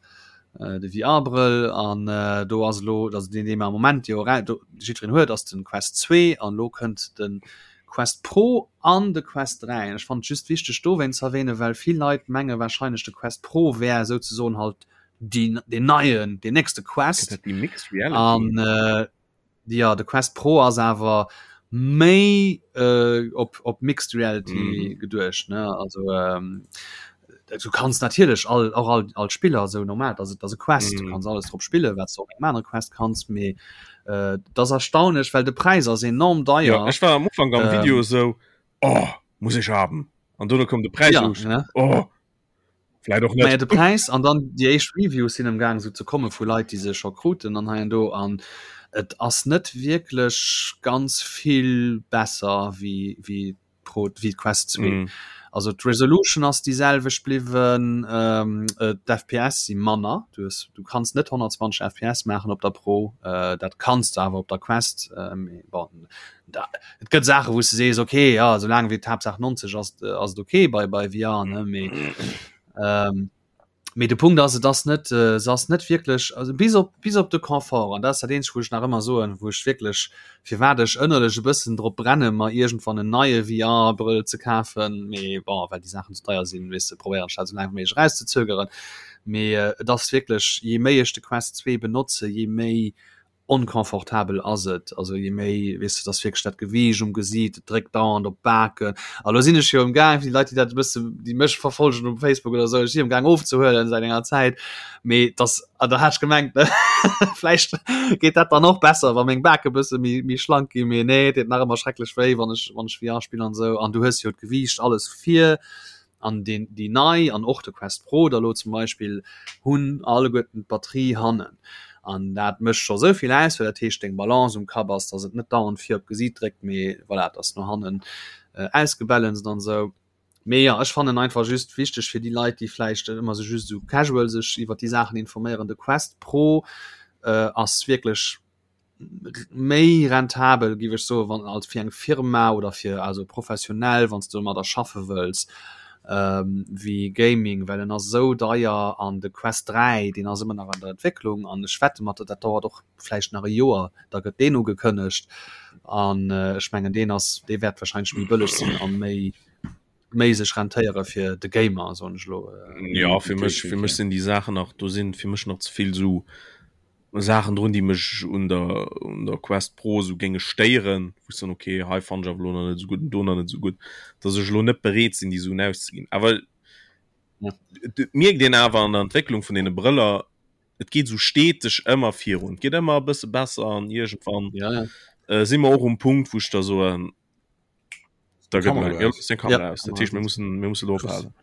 äh, de VR-Brëll. An äh, do ass elo, also deen, dee mer am Moment jo era, do, jiddwereen huet, ass den Quest 2 an elo kënnt den Quest Pro an de Quest 3. Ech fannen et just wichteg dowéinst ze erwähnen, well vill Leit menge wahrscheinlech de Quest Pro wär souzesoen halt déi deen neien, deen nächste Gëtt Quest. dat déi Mixed Reality? An äh, jo, de Quest Pro ass awer méi äh, op, op Mixed Reality Mhm. geduecht, ne? Also ähm, du kanns natierlech all, och all, all Spiller esou normal, dat ass, dat ass e Quest, du Mhm. kanns alles drop spillen, wat s de op engem anere Quest kanns, mee äh, dat ass erstaunlech, well de Präis ass enorm Ja, deier. ech war am Ufank am Video Ähm, esou, oh, muss ech haben. An dono koum de Präis ja, un, ne? oh, vläit och Naja, net. de Präis an dann déi éischt Reviews sinn am Gaang esou ze komme vu Leit, déi se scho kruten an hei an do an et ass net wierklech ganz vill besser wéi, wéi. d'Pro wéi d'Quest 2. Mm. Also d'Resolution ass déi selwecht bliwwen, ähm, äh, d'FPS si manner. Du, hues, du kanns net 120 FPS maachen op der Pro, äh, dat kanns du awer op der Quest. Äh, bon, da, et gëtt Saache wou s du sees, okay, ja, soulaang wéi d'Haaptsaach 90 ass, ass et okay bei, bei VR, ne, mee ähm, Mee de Punkt ass, et ass net, se ass net wierklech, also bis op, bis op de Confort, an dat ass dat eenzegt, wou ech nach ëmmer soen, wou ech wierklech, firwat ech ënnerlech e bëssen drop brenne mer iergendwann en neie VR-Brëll ze kafen, mee bon, well déi Saachen ze deier sinn, weess de, probéieren ech dat esou laang wéi méiglech erauszezögeren. Mee et ass wierklech, jee méi ech de Quest 2 benotze, jee méi onconfortabel ass et, also je méi, weess de, dass wierklech dat Gewiicht um Gesiit, et dréckt dauernd op d'Baken. A lo sinn ech jo emgaang, fir déi Leit, déi dat e bësse, déi mech verfollegen um Facebook oder esou, ech si emgaang ofzehuelen säit enger Zäit, mee dass, an da hat ech gemengt, ne, vläicht geet dat dann och besser, wa meng Bake bësse méi, méi schlank ginn, mee nee, et deet nach ëmmer schrecklech wéi, wann ech, wann ech VR spillen an esou. An du hues jo d'Gewiicht alles vir. An deen, déi nei an och de Quest Pro da lo zum Beispill hunn alleguerten d'Batterie hannen. An dat mécht scho sou vill aus, well dat heescht deng Balance um Kapp ass, datt et net dauernd vir op d'Gesiit dréckt, mee voilà, et ass no hannen ausgebalanced an esou. Mee jo, ech fannen einfach just wichteg fir déi Leit, déi vläicht ëmmer sou just esou casual sech iwwer déi Saachen informéieren, de Quest Pro ass wierklech méi rentabel géif ech soen, wann als fir eng Firma oder fir also professionell wann s de domadder schaffe wëlls wéi Gaming, well en ass esou deier an de Quest 3 deen ass ëmmer nach an der Entwécklung an ech wette mat der dat dauert och vläicht nach e Joer, da gëtt deen ugekënnegt an ech mengen deen ass dee wäert wahrscheinlech méi bëlleg sinn an méi méi sech rentéiere fir de Gamer soen ech elo. Jo fir mech fir mech sinn déi Saachen nach do sinn fir mech nach ze vill esou Saachen drun, déi mech un der, un der Quest Pro esou géinge stéieren, wou ech soen, okay, hei fannen ech awer elo nach net esou gutt an do nach net esou gutt, dass ech elo net bereet sinn, déi Suen auszeginn. Awer et mierkt een awer an der Entwécklung vun deene Brëller, et geet esou steteg ëmmer virun, et geet ëmmer e bësse besser an iergendwann ja, ja. äh, si mer och um Punkt, wou ech da soen, da gëtt mer ja, Kamera aus. Dat heescht, mir mussen, mir mussen elo ophalen.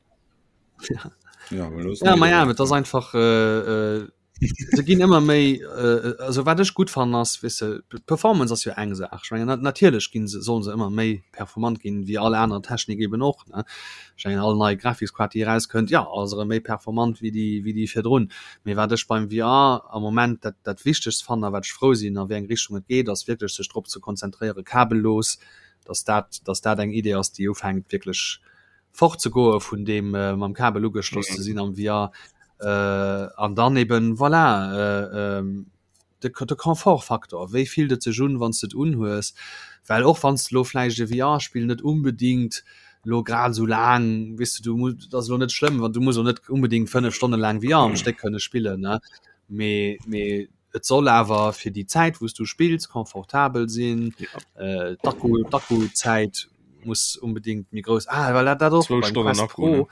Ja. Ja, ja, ma ja, et ass einfach äh, äh, se ginn ëmmer méi äh, also wat ech gutt fannen ass weess de d'Performance ass jo eng Saach. Ech mengen natierlech ginn se sollen se ëmmer méi performant ginn wéi all aner Technik eben och ne. Ech mengen all nei Grafiskkaart déi erauskënnt jo ass erëm méi performant wéi déi wéi déi virdrun. Mee wat ech beim VR am Moment dat dat wichtegst fannen a wat ech frou sinn a wéi eng Richtung et geet ass wierklech sech drop ze konzentréiere kabellos, dass dat dass dat eng Idee ass déi ufänkt wierklech fortzegoe vun deem mam Kabel ugeschloss ze sinn am VR an dann eben voilà de de Confortfaktor, wéi fillt et sech un wann s de et unhues, well och wann s de elo vläicht e VR-Spill net unbedingt elo grad esou laang, weess de, du muss, et ass elo net schlëmm, wann du muss och net unbedingt 5 Stonne laang VR am Stéck kënne spillen, ne, mee mee Et soll awer fir déi Zäit wou s du spills confortabel sinn. Ja. D'Akku, d'Akkuzäit muss unbedingt méi grouss ah, well dat dat och beim Quest Pro. Ne?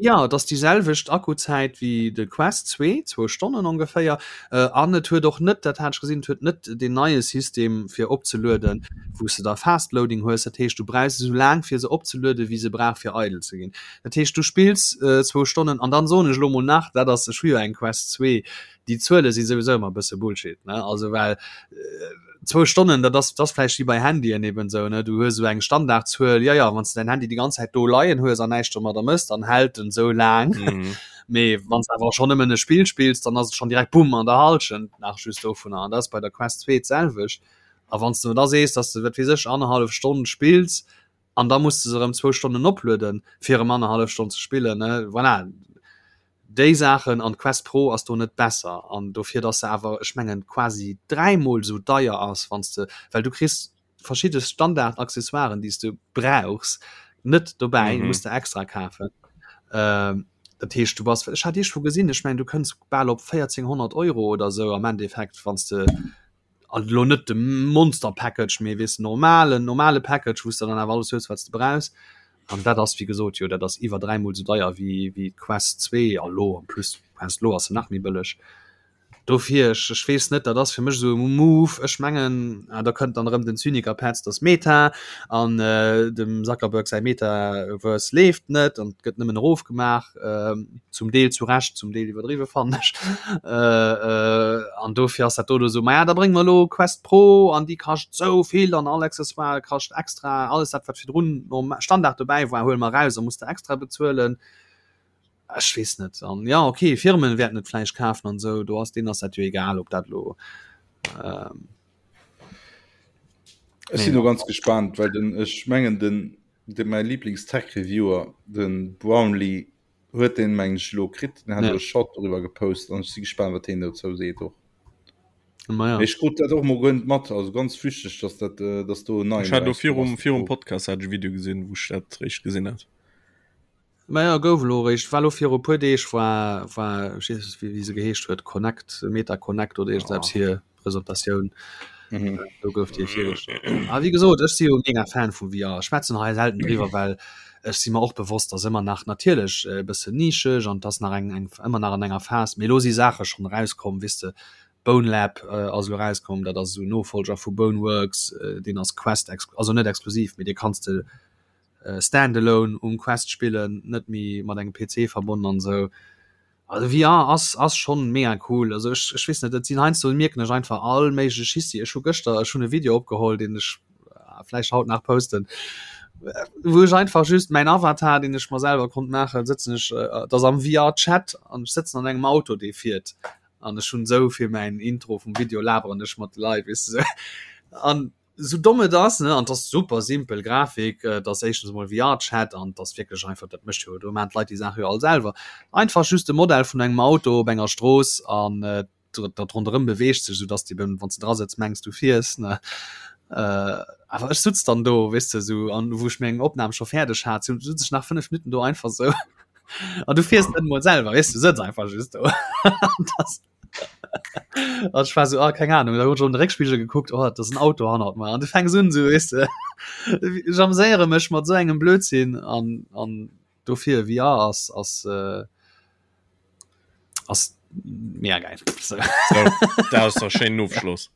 Ja, et ass déi selwecht Akkuzäit wéi de Quest 2, zwou Stonnen ongeféier. Äh, an et huet och net, dat hat ech gesinn, et huet net deen neie System fir opzelueden, wou s de da Fast Loading hues. Dat heescht, du brauchs esou laang fir se opzelueden, wéi se brauch fir eidel ze ginn. Dat heescht, du spills äh, zwou Stonnen an dann soen ech elo mol nach, dat ass, ech hu jo eng Quest 2, déi Zuele si souwisou ëmmer e bësse Bullshit, ne? Also well zwou Stonnen, dat ass, dat ass vläicht wéi bei Handyen eben esou, ne? Du hues esou eng Standardzuel, jo, jo, wann s de däin Handy déi ganz Zäit do leien hues an näischt domadder mëss, dann hält en esou laang. Mhm. Mee wann s de awer schonn nëmmen e Spill spills, dann ass et schonn direkt bumm an der Hallschent nach just dovunner. An dat ass bei der Quest 2 d'selwecht. A wann s de da sees, datt s de, wat weess ech, annerhallef Stonn spills an da muss de se erëm zwou Stonnen oplueden, fir erëm annerhallef Stonn ze spillen, ne? Voilà. Déi Saachen, an d'Quest Pro ass do net besser an dofir dass se awer ech mengen quasi dräimol esou deier ass wann s de, well du kriss verschidde Standard Accessoiren déi s de brauchs net dobäi, muss de extra kafen. Dat heescht du bass, ech hat iergendwou gesinn, ech mengen du kënns bal op 1400 Euro oder esou am Endeffekt wann s de also elo net de Monster Package, mee weess normalen normale Package, wou s de dann awer alles hues wat s de brauchs. An dat ass wéi gesot jo dat ass iwwer dräimol esou deier wéi wéi d'Quest 2 a lo en plus d'Quest lo ass se nach méi bëlleg. Dofir, ech, ech weess net, dat ass fir mech esou e Move. Ech mengen, ah, da kënnt dann erëm den Zyniker Petz, dass Meta an äh, dem Zuckerberg säi Metaverse leeft net an gëtt nëmmen erofgemaach, äh, zum Deel zu Recht, zum Deel iwwerdriwwe fannen ech. Äh, äh, an dofir ass dat do do esou, maja, da brénge mer elo Quest Pro an déi kascht esou vill an all Accessoire kascht extra, alles dat wat virdrun nom Standard dobäi war, huele mer eraus a muss de extra bezuelen. Ech weess net an ja okay Firmen wäerten et vläicht kafen an esou do ass deen ass dat jo egal ob dat lo ähm, Ech sinn do ganz gespannt, well den ech mengen den de mäi Lieblings-Tech-Reviewer den Brownlee huet den meng ech lo kritt, den hat ja. e Shot doriwwer gepost an ech si gespannt wat heen dozou seet och. Ma ja. Ech krut dat och mol guer net mat, also ganz flüchteg, dass dat äh, dass do en neien Ech hat lo erauskomm virum ass. virum Podcast hat ech e Video gesinn, wou ech dat réischt gesinn hat. Maja gouf elo eréischt, war elo viru puer Deeg war war ech weess net wéi se geheescht huet, Connect, Meta Connect oder iergendeppes hir Presentatioun. Mhm. Do gouf déi virgestallt. A wéi gesot, ech si jo mega Fan vu VR. Ech schwätzen hei selten driwwer, well ech si mer och bewosst, dass ëmmer nach natierlech e bëssen nischeg an dass nach eng eng ëmmer nach an enger Phas, mee elo si Saache schonn erauskomm, weess de, Bonelab ass elo erauskomm, dat ass esou en Nofollger vu Boneworks, deen ass Quest ex also net exklusiv, mee dee kanns de Standalone um Quest spillen, net méi mat engem PC verbonnen an esou. Also VR ass ass schonn mega cool. Also ech ech weess net, et sinn heiansdo mierken ech einfach all méigleche Schissi. Ech hu gëschter ech hunn e Video opgeholl, deen ech vläicht haut nach posten, wou ech einfach just mäin Avatar, deen ech mer selwer konnt maachen, sëtzen ech, et ass am VR-Chat an ech sëtzen an engem Auto, dee fiert an ech hunn esou fir mäin Intro vum Video laberen ech mat de Leit, weess de sou. An Sou domm et ass, ne, an 't ass super simpel Grafik, et ass éischtens emol VR-Chat an 't ass wierklech einfach, dat mécht jo, do maachen d'Leit déi Saach jo all selwer, einfach just de Modell vun engem Auto op enger Strooss an dat ronderëm beweegt sech, sou dass de eben, wann s de dra sëtz, mengs du fiers, ne. Awer ech sutz dann do, weess de, sou, an wou ech meng Opnam scho fäerdeg hat, sou sutz ech nach 5 Minutten do einfach sou an du fiers net emol selwer, weess du, sëtz einfach just do. An das. An ech war so ah, keng Ahnung, da hunn ech an de Réckspigel gekuckt, oh, dat ass en Auto hannert mer. An du fänks un so weess de ech ameséiere mech mat sou engem Blödsinn an an dofir VR ass ass äh, ass mega geil. So. So, dat ass der schéinen Ofschloss.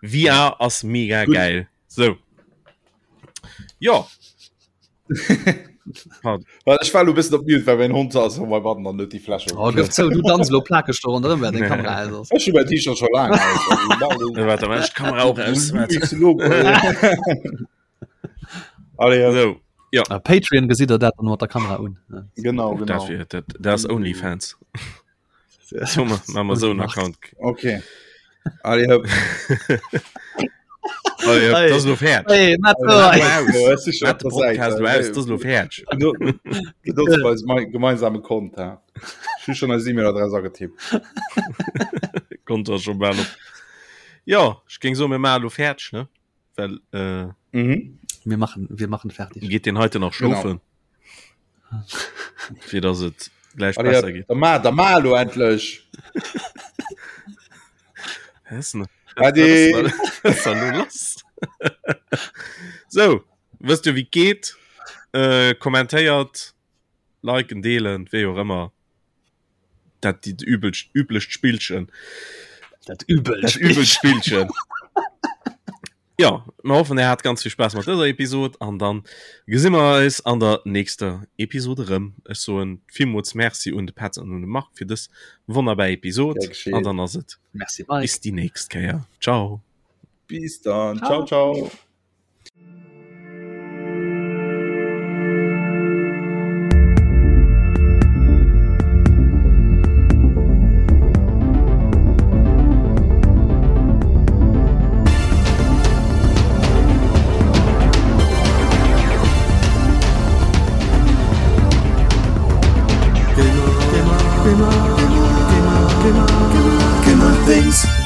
VR ass mega Gut. geil. So. Ja. Well ech war lo bëssen op Mute, well mäin Hond ass op meinem Button an huet déi Fläsch Oh, gëff zou, du danz lo plakeg do ronderëm, während deng Kamera aus ass. Ech hu mäin T-Shirt scho laang aus. Also, Äh, Warte, mach ich d'Kamera auch aus. Warte. Allez, ja. So, ja. Ah, Patreon gesitt der dat dann mat der Kamera un. Ja. Genau, genau. Dat, wär, dat, dat ass OnlyFans. So, ma, ma ma so einen Account. Okay. Allez, hopp. Allez, hopp, das ist lo fertig. Hey, Ja, es ist schon Mach den auf der Podcast Seite. lo aus, das ist lo fertig. Benutzt bei eisem gemeinsame Konto. Ich hu schon eis E-Mail-Adress agetippt. Konto ass schon bal op. Ja, ich ging so mir mal lo fertig, ne? Well äh, Mhm. Wir machen, wir machen fertig. geht den heute nach schlofen. Fir dass et gleich Allez, besser geht. Da ma, da ma lo endlech. Hessen. Ade. lass. So, wësst du wie geht? Äh, kommentéiert, liken, deelen, wéi och ëmmer. Dat die übelst üblecht Spillchen. Dat übelst Dat übelst Spillchen. Ja, mir hoffen er hat ganz viel Spaß mat dëser Episode an dann gesi mer eis an der nächster Episode rëm. Ech soen villmools Merci un de Petz an un de Marc fir dës wonnerbar Episode Gär geschehen. an dann ass et Merci Mike. bis déi nächst Kéier. Ciao. Bis dann. Ciao, ciao. Gamer, gamer, gamer, gamer, gamer, gamer, gamer things.